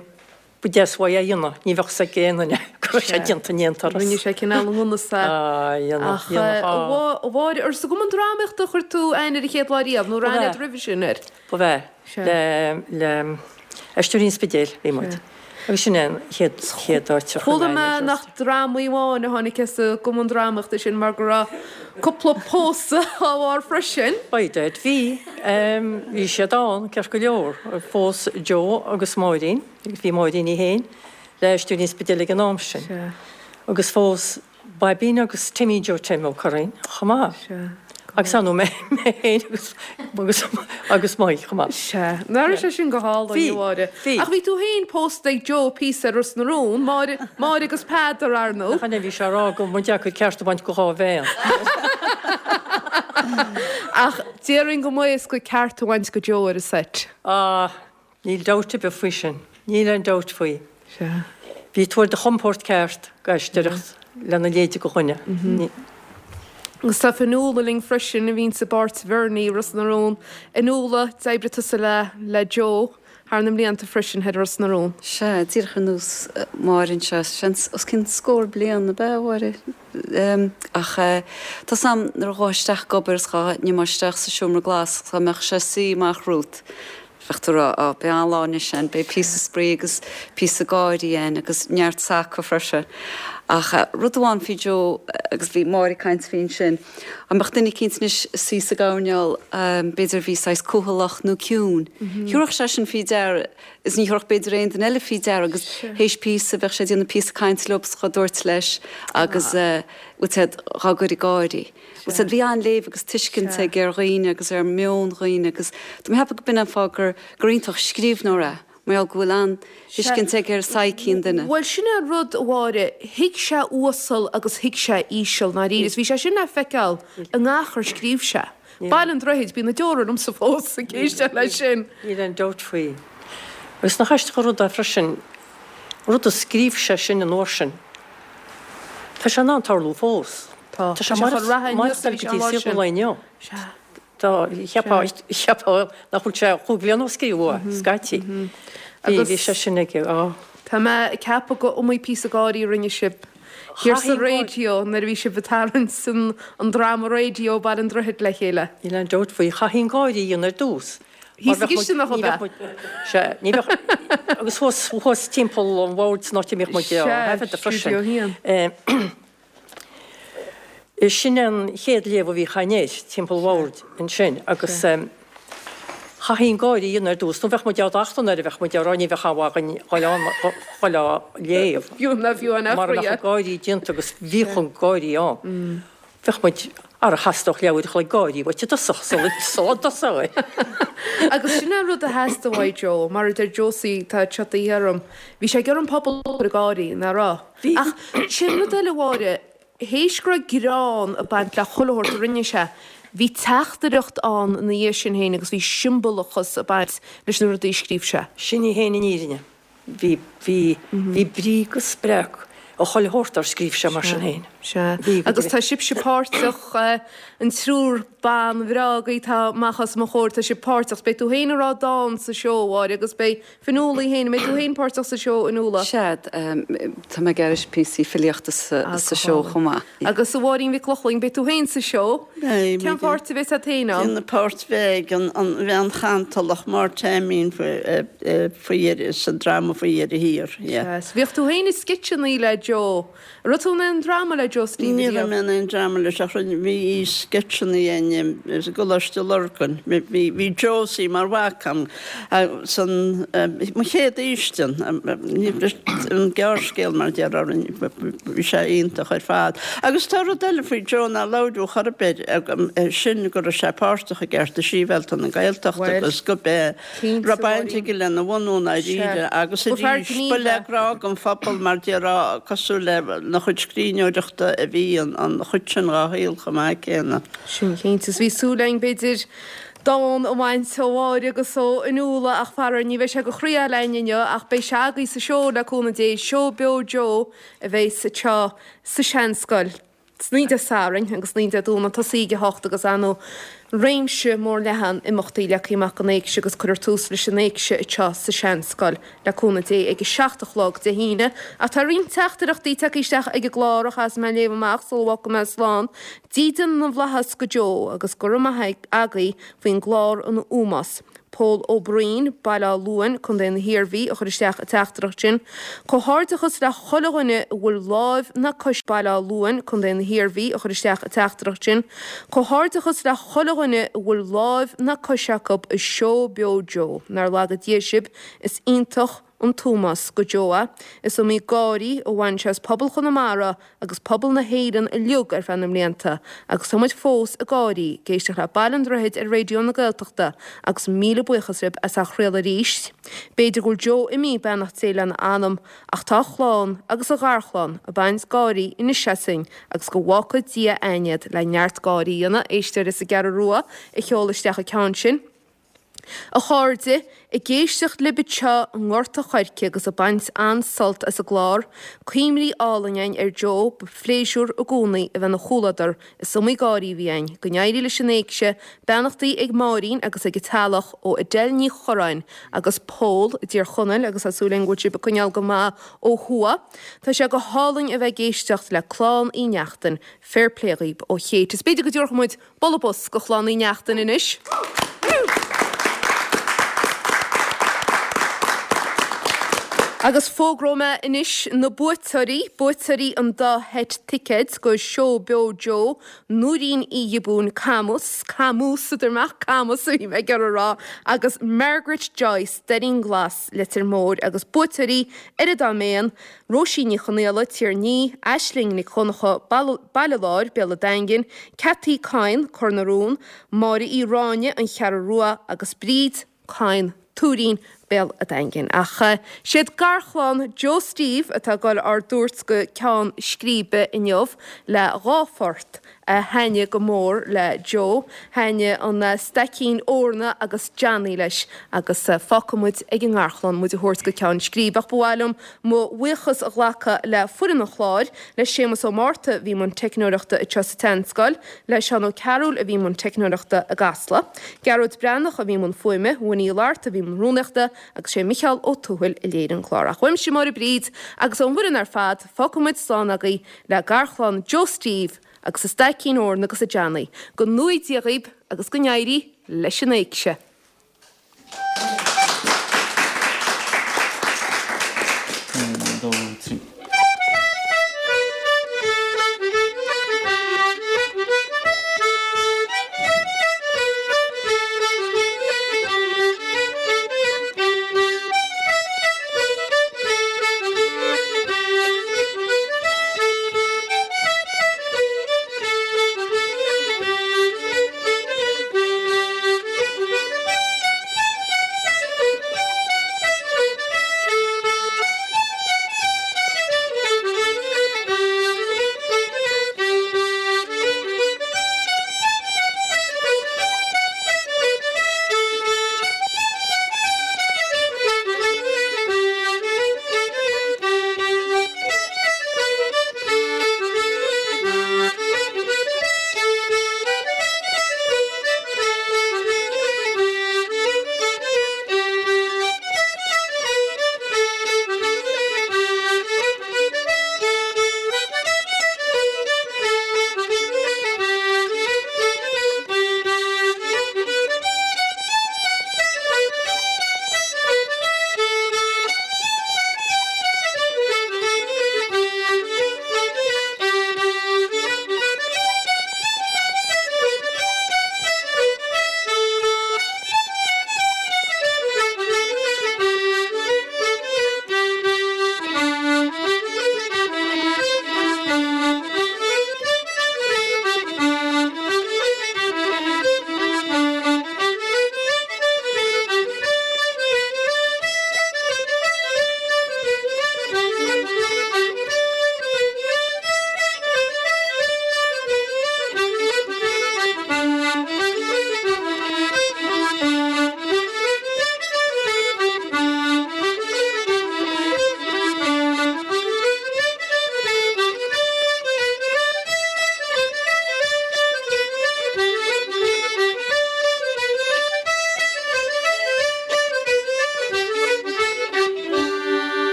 Speaker 15: ba deas uaidh é a dhéanamh, ní bheadh 'fhios ag aon duine go raibh sé déanta in aon turas.
Speaker 1: Rinne sé cineál i ngan fhios é.
Speaker 15: Á, dhéanadh,
Speaker 1: Ach
Speaker 15: dhéanadh, á.
Speaker 1: a Mháire, ar sa gCumann Drámaíochta a chuir tú aithne ar an chéad lá riamh nó raibh aithne agat roimhe sin air?
Speaker 15: Ba ea. Le, le Aisteoirí an Spidéil bhí muid. Agus sin é an chéad, chéad áit a chuir
Speaker 1: Chuala mé nach drámaí amháin a tháinig as an gCumann Drámaíochta sin mar go raibh cúpla pósadh dá bharr freisin.
Speaker 15: By dad bhí. Bhí siad ann, ceart go leor. Phós Joe agus Máirín, agus bhí Máirín í féin le Aisteoirí an Spidéil ag an am sin. Agus phós Baibín agus Timmy Joe Tim Ó Curraoin chomh maith.
Speaker 1: Sea.
Speaker 15: Agus ar ndóigh mé féin agus agus agus Mike chomh maith.
Speaker 1: Sea. Nach raibh sé sin go hálainn, a Mháire.
Speaker 15: Bhí.
Speaker 1: Ach bhí tú féin pósta ag Joe píosa ar Ros na Rún, Máire, Máire agus Peadar, ar ndóigh.
Speaker 15: Nach ea, bhí sé ag rá go mba deacair ceart a bhaint go dhá bhean.
Speaker 1: Ach déarfainn go mba éasca ceart a bhaint go Joe ar an seit.
Speaker 15: Ah, níl dabht ar bith faoi sin. Níl aon dabht faoi.
Speaker 1: Sea.
Speaker 15: Bhí tú ar do chompord ceart ag aisteoireacht lena leithéid de dhuine.
Speaker 1: Agus tá Fionnuala linn freisin, a bhíonns i bpáirt Bhernie i Ros na Rún. Fionnuala, d'oibrigh tusa le le Joe thar na mblianta freisin thoir i Ros na Rún.
Speaker 16: Sea, díreach ar nós Máire anseo, seans os cionn scór bliain, ab ea, a Mháire? Ach tá 's a'm nuair a ghabhfá isteach ag obair is dhá n-imeá isteach sa seomra glas dá mbeadh sé ag suí amach romhat, Bheadh tú ag rá, Á, beidh an-lá anois ann, beidh píosa spraoi agus píosa gáirí ann agus neart saca freisin. Ach rud amháin faoi Joe, agus bhí Máire ag caint faoi ansin, dá mbeadh duine eicínt anois ag suí sa gcoirnéal, b'fhéidir a bhí saghas cúthaileach nó ciúin, thiúrfadh sé sin faoi deara is ní thiúrfadh b'fhéidir aon duine eile faoi deara agus théis píosa bheadh sé ag déanamh píosa cainte leo is dhá dtabhairt leis agus bhfuil 's a'd dhá gcur ag gáirí. Bhfuil 's a'd, bhí an-léamh agus tuiscint aige ar dhaoine agus ar mheon dhaoine agus tá mé ag ceapadh go b'in an fáth gur gur iontach scríbhneoir é, mar gheall go bhfuil an-tuiscint aige ar psyche an duine.
Speaker 1: Bhuel, sin é an rud, a Mháire, thuig sé uasal agus thuig sé íseal, ndáiríre, is bhí sé sin le feiceáil i ngach ar scríobh sé. Baile an Droichid, bíonn na deora ormsa fós ag éisteacht leis sin.
Speaker 15: Níl aon dabht faoi. Agus nach aisteach an rud é freisin, rud a scríobh sé sin an uair sin, tá sé in ann tarlú fós.
Speaker 1: Tá.
Speaker 15: Tá sé chun reatha inniu go dtí saol an lae inniu.
Speaker 1: Sea.
Speaker 15: Tá, cheapfá, cheapfá nach bhfuil sé chúig bhliana ó scríobhadh é, scaití. Bhí, bhí sé sin aige, á.
Speaker 1: Tá mé ag ceapadh gur iomaí píosa gáirí a rinne sibh thiar sa raidió nuair a bhí sibh ag tarraingt an, an dráma raidió Baile an Droichid le chéile.
Speaker 15: Níl aon dabht faoi. Chaithfí an gáire a dhéanamh ar dtús.
Speaker 1: Thíos sa gcisteanach ab ea?
Speaker 15: Sea, ní bheadh, agus thuas, thuas timpeall an bhoird san áit a mbíodh muid á thaifeadadh freisin.
Speaker 1: Sea, Stiúideo 1.
Speaker 15: Sin an chéad léamh a bhíodh againn air, timpeall an bhoird ansin, agus chaithfí an gáire a dhéanamh ar dtús, nó bheadh muid á dtachtadh nuair a bheadh muid á rá, ní bheadh am againn dhul ann dhul á léamh.
Speaker 1: Fiú ná fiú an
Speaker 15: Mara mbeadh an gáirí déanta agus bhíodh an gáirí ann. Bheadh muid, ara theastódh leathuair a chloig gáirí uait i dtosach sula dtosófaí.
Speaker 1: Agus sin é an rud a theastaigh uaidh Joe, mar a deir Josie, tá tiotaithe orm, bhí sé ag iarraidh an pobal a chur ag gáirí, nach raibh? Ach sin rud eile, a Mháire, théis go raibh greann ag baint le chuile shórt a rinne sé, bhí teachtaireacht ann ina dhiaidh sin féin agus bhí siombalachas ag baint leis na rudaí a scríobh sé.
Speaker 15: Sin í féin an fhírinne. Bhí, bhí, bhí brí agus spreag i chuile shórt dár scríobh sé mar sin féin.
Speaker 1: Sea. Agus tá sibhse páirteach, an triúr ban bhreá agaibh atá amach os mo chomhair, tá sibh páirteach. Beidh tú féin ag rá dán sa seó, a Mháire, agus beidh Fionnuala í féin, an mbeidh tú féin páirteach sa seó, a Fhionnuala?
Speaker 16: Sea, tá mé ag aithris píosaí filíochta sa seó chomh maith.
Speaker 1: Agus a Mháirín Mhic Lochlainn, beidh tú féin sa seó.
Speaker 17: Beidh.
Speaker 1: Cén pháirt a bheas agat féin ann?
Speaker 17: Déanamh páirt Mheig, an bhean chantalach, Máire Taimín faoi dheireadh, sa dráma faoi dheireadh thiar.
Speaker 1: Sea, bhíodh tú féin i sceitseanna le Joe. An raibh tú in aon dráma le Joe Steve
Speaker 17: Ní raibh mé in aon dráma leis ach rinne, bhí sceitseanna againn i gColáiste Lurgan. Bhí, bhí Josie mar mhac a'm san, mo chéad fhaoistin, an gearrscéal mar déarfá, bhí sé iontach ar fad. Agus tá rud eile faoi Joe nár labhradh chor ar bith, sin go raibh sé páirteach i gCearta Sibhialta na Gaeltachta agus go b'é, raibh baint aige lena bhunú i ndáiríre agus arís ba le grá don phobal mar déarfá cosúil lena chuid scríbhneoireachta a bhí an chuid sin dhá shaol chomh maith céanna.
Speaker 1: Sin cinnte. Is bhí súil againn b'fhéidir dán a bhaint ó Mháire agus ó Fhionnuala ach faraor ní bheidh sé go chroí againn inniu ach beidh sé agaibh sa seó le cúnamh Dé, Seó Beo Joe a bheidh anseo sa Seanscoil. San oíche Dé Sathairn agus san oíche Dé Domhnaigh tosaí ag 8 agus ar ndóigh réimse mór leathan imeachtaí leagtha amach don éigse agus cuirfear tús leis an éigse anseo sa Seanscoil le cúnamh Dé ag 7 a chlog Dé hAoine. Ach tá roinnt teachtaireachtaí tagtha isteach ag an gclár a chaithfeas mé a léamh amach sula bhfágfaidh mé slán. Dídean na bhFlaitheas go Joe agus go raibh maith agaibh faoin gclár an ómós. Pól Ó Broin, Baile Átha Luain, Co. na hIarmhí, a chuir isteach an teachtaireacht sin. Comhghairdeachas le chuile dhuine a bhfuil láimh ná cois Baile Átha Luain, Co. na hIarmhí, a chuir isteach an teachtaireacht sin. Comhghairdeachas le chuile dhuine a bhfuil láimh ná cois acu i Seó Beo Joe. Nár laga Dia sibh, is iontach an t-ómós go Joe é. Is iomaí gáirí a bhain sé as pobal Chonamara agus pobal na hÉireann uilig ar feadh na mblianta agus tá muid fós ag gáirí ag éisteacht le Baile an Droichid ar Raidió na Gaeltachta agus míle buíochas libh as á chraoladh arís. B'fhéidir go bhfuil Joe imithe, beannacht Dé lena anam, ach tá a chlann agus a gharchlann ag baint gáirí anois asainn agus go bhfágfaidh Dia againn iad le neart gáirí a dhéanamh, éisteoir as an gCeathrú Rua a sheol isteach an ceann sin. A chairde, ag éisteacht libh anseo i nGort a' Choirce agus ag baint an-sult as an gclár, cuimhní álainn againn ar Joe, ba phléisiúr i gcónaí a bheith ina chomhluadar, is iomaí gáirí a bhí againn. Go n-éirí leis an éigse, beannachtaí ag Máirín agus ag a teaghlach ó Adele Ní Churráin agus Pól i dTír Chonaill agus tá súil againn go bhfuil sibh ag coinneáil go maith ó thuaidh. Tá sé go hálainn a bheith ag éisteacht le Clann Uí Neachtain, fair play dhaoib ó Kate. Is b'fhéidir go dtabharfaidh muid Bualadh bos go Chlann Uí Neachtain anois. Agus fógróidh mé anois na buaiteoirí, buaiteoirí an dá sheit ticéid go Seó Beo Joe, Nóirín Uí Ghiobúin, Camus, Camus a deir mé ach Camus a bhí mé ag iarraidh a rá, agus Margaret Joyce, Doirín Glas, Leitir Móir, agus buaiteoirí ar an dá mhéan, Róisín Ní Chonaola, Tír an Fhia, Aisling Nic Dhonncha, Baile Láir, Béal an Daingin, Cathy Coyne, Cor na Rón, Máire Uí Ráinne, An Cheathrú Rua, agus Bríd Coyne, Tuairín, Béal an Daingin. Ach siad garchlann Joe Steve atá ag dul ár dtabhairt go ceann scríbe inniu le dhá phort a thaitnigh go mór le Joe. Thaitnigh an Staicín Eorna agus Johnny leis agus fágfaidh muid ag an ngarchlann muid a thabhairt go ceann scríbe. Ach ba mhaith liom mo bhuíochas a ghlacadh le foireann an chláir, le Séamus Ó Márta a bhí i mbun teicneoireachta anseo sa tSeanscoil, le Seán Ó Cearúil a bhí i mbun teicneoireachta i gCasla, Gearóid Breathnach a bhí i mbun fuaime, Winnie Uí Fhlatharta a bhí i mbun rúnaíochta agus sé Micheál Ó Tuathail a léirigh an clár. Ach uaimse Máire Bríd agus ón bhfoireann ar fad, fágfaidh muid slán agaibh le garchlann Joe Steve agus a Staicín Eorna agus a Johnny. Go ngnóthaí Dia dhaoib agus go n-éirí leis an éigse.
Speaker 9: 1, 2, 3.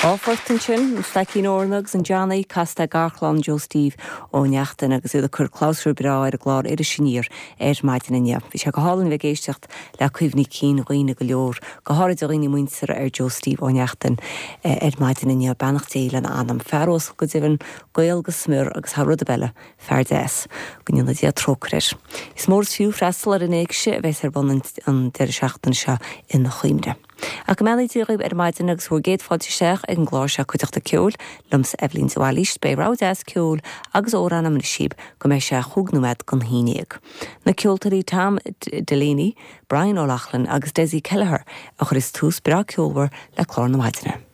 Speaker 18: Dhá phort ansin, an Staicín Eorna agus an Johnny, casta ag garchlann Joe Steve Ó Neachtain agus iad ag cur clabhsúr breá ar an gclár Iris Aniar ar maidin inniu. Bhí sé go hálainn a bheith ag éisteacht le cuimhní cinn dhaoine go leor, go háirid a dhaoine muinteartha ar Joe Steve Ó Neachtain ar maidin inniu. Beannacht Dé lena anam. Fear uasal go deimhin, Gael go smior agus thar rud ar bith eile, fear deas. Go ndéana Dia trócaire air. Is mór is fiú freastal ar an éigse a bheas ar bun an deireadh seachtaine seo ina chuimhne. Ach go mbeannaí Dia dhaoibh ar maidin agus bhur gcéad fáilte isteach ag an gclár seo Cuideachta Ceoil, liomsa Eibhlín de Bhailís. Beidh rogha deas ceoil agus amhrán agam anois daoibh go mbeidh sé chúig nóiméad don haon dhéag. Na ceoltóirí Tom Delaney, Brian O'Loughlin agus Dessie Kelleher a chuirfeas tús breá ceolmhar le clár na maidine.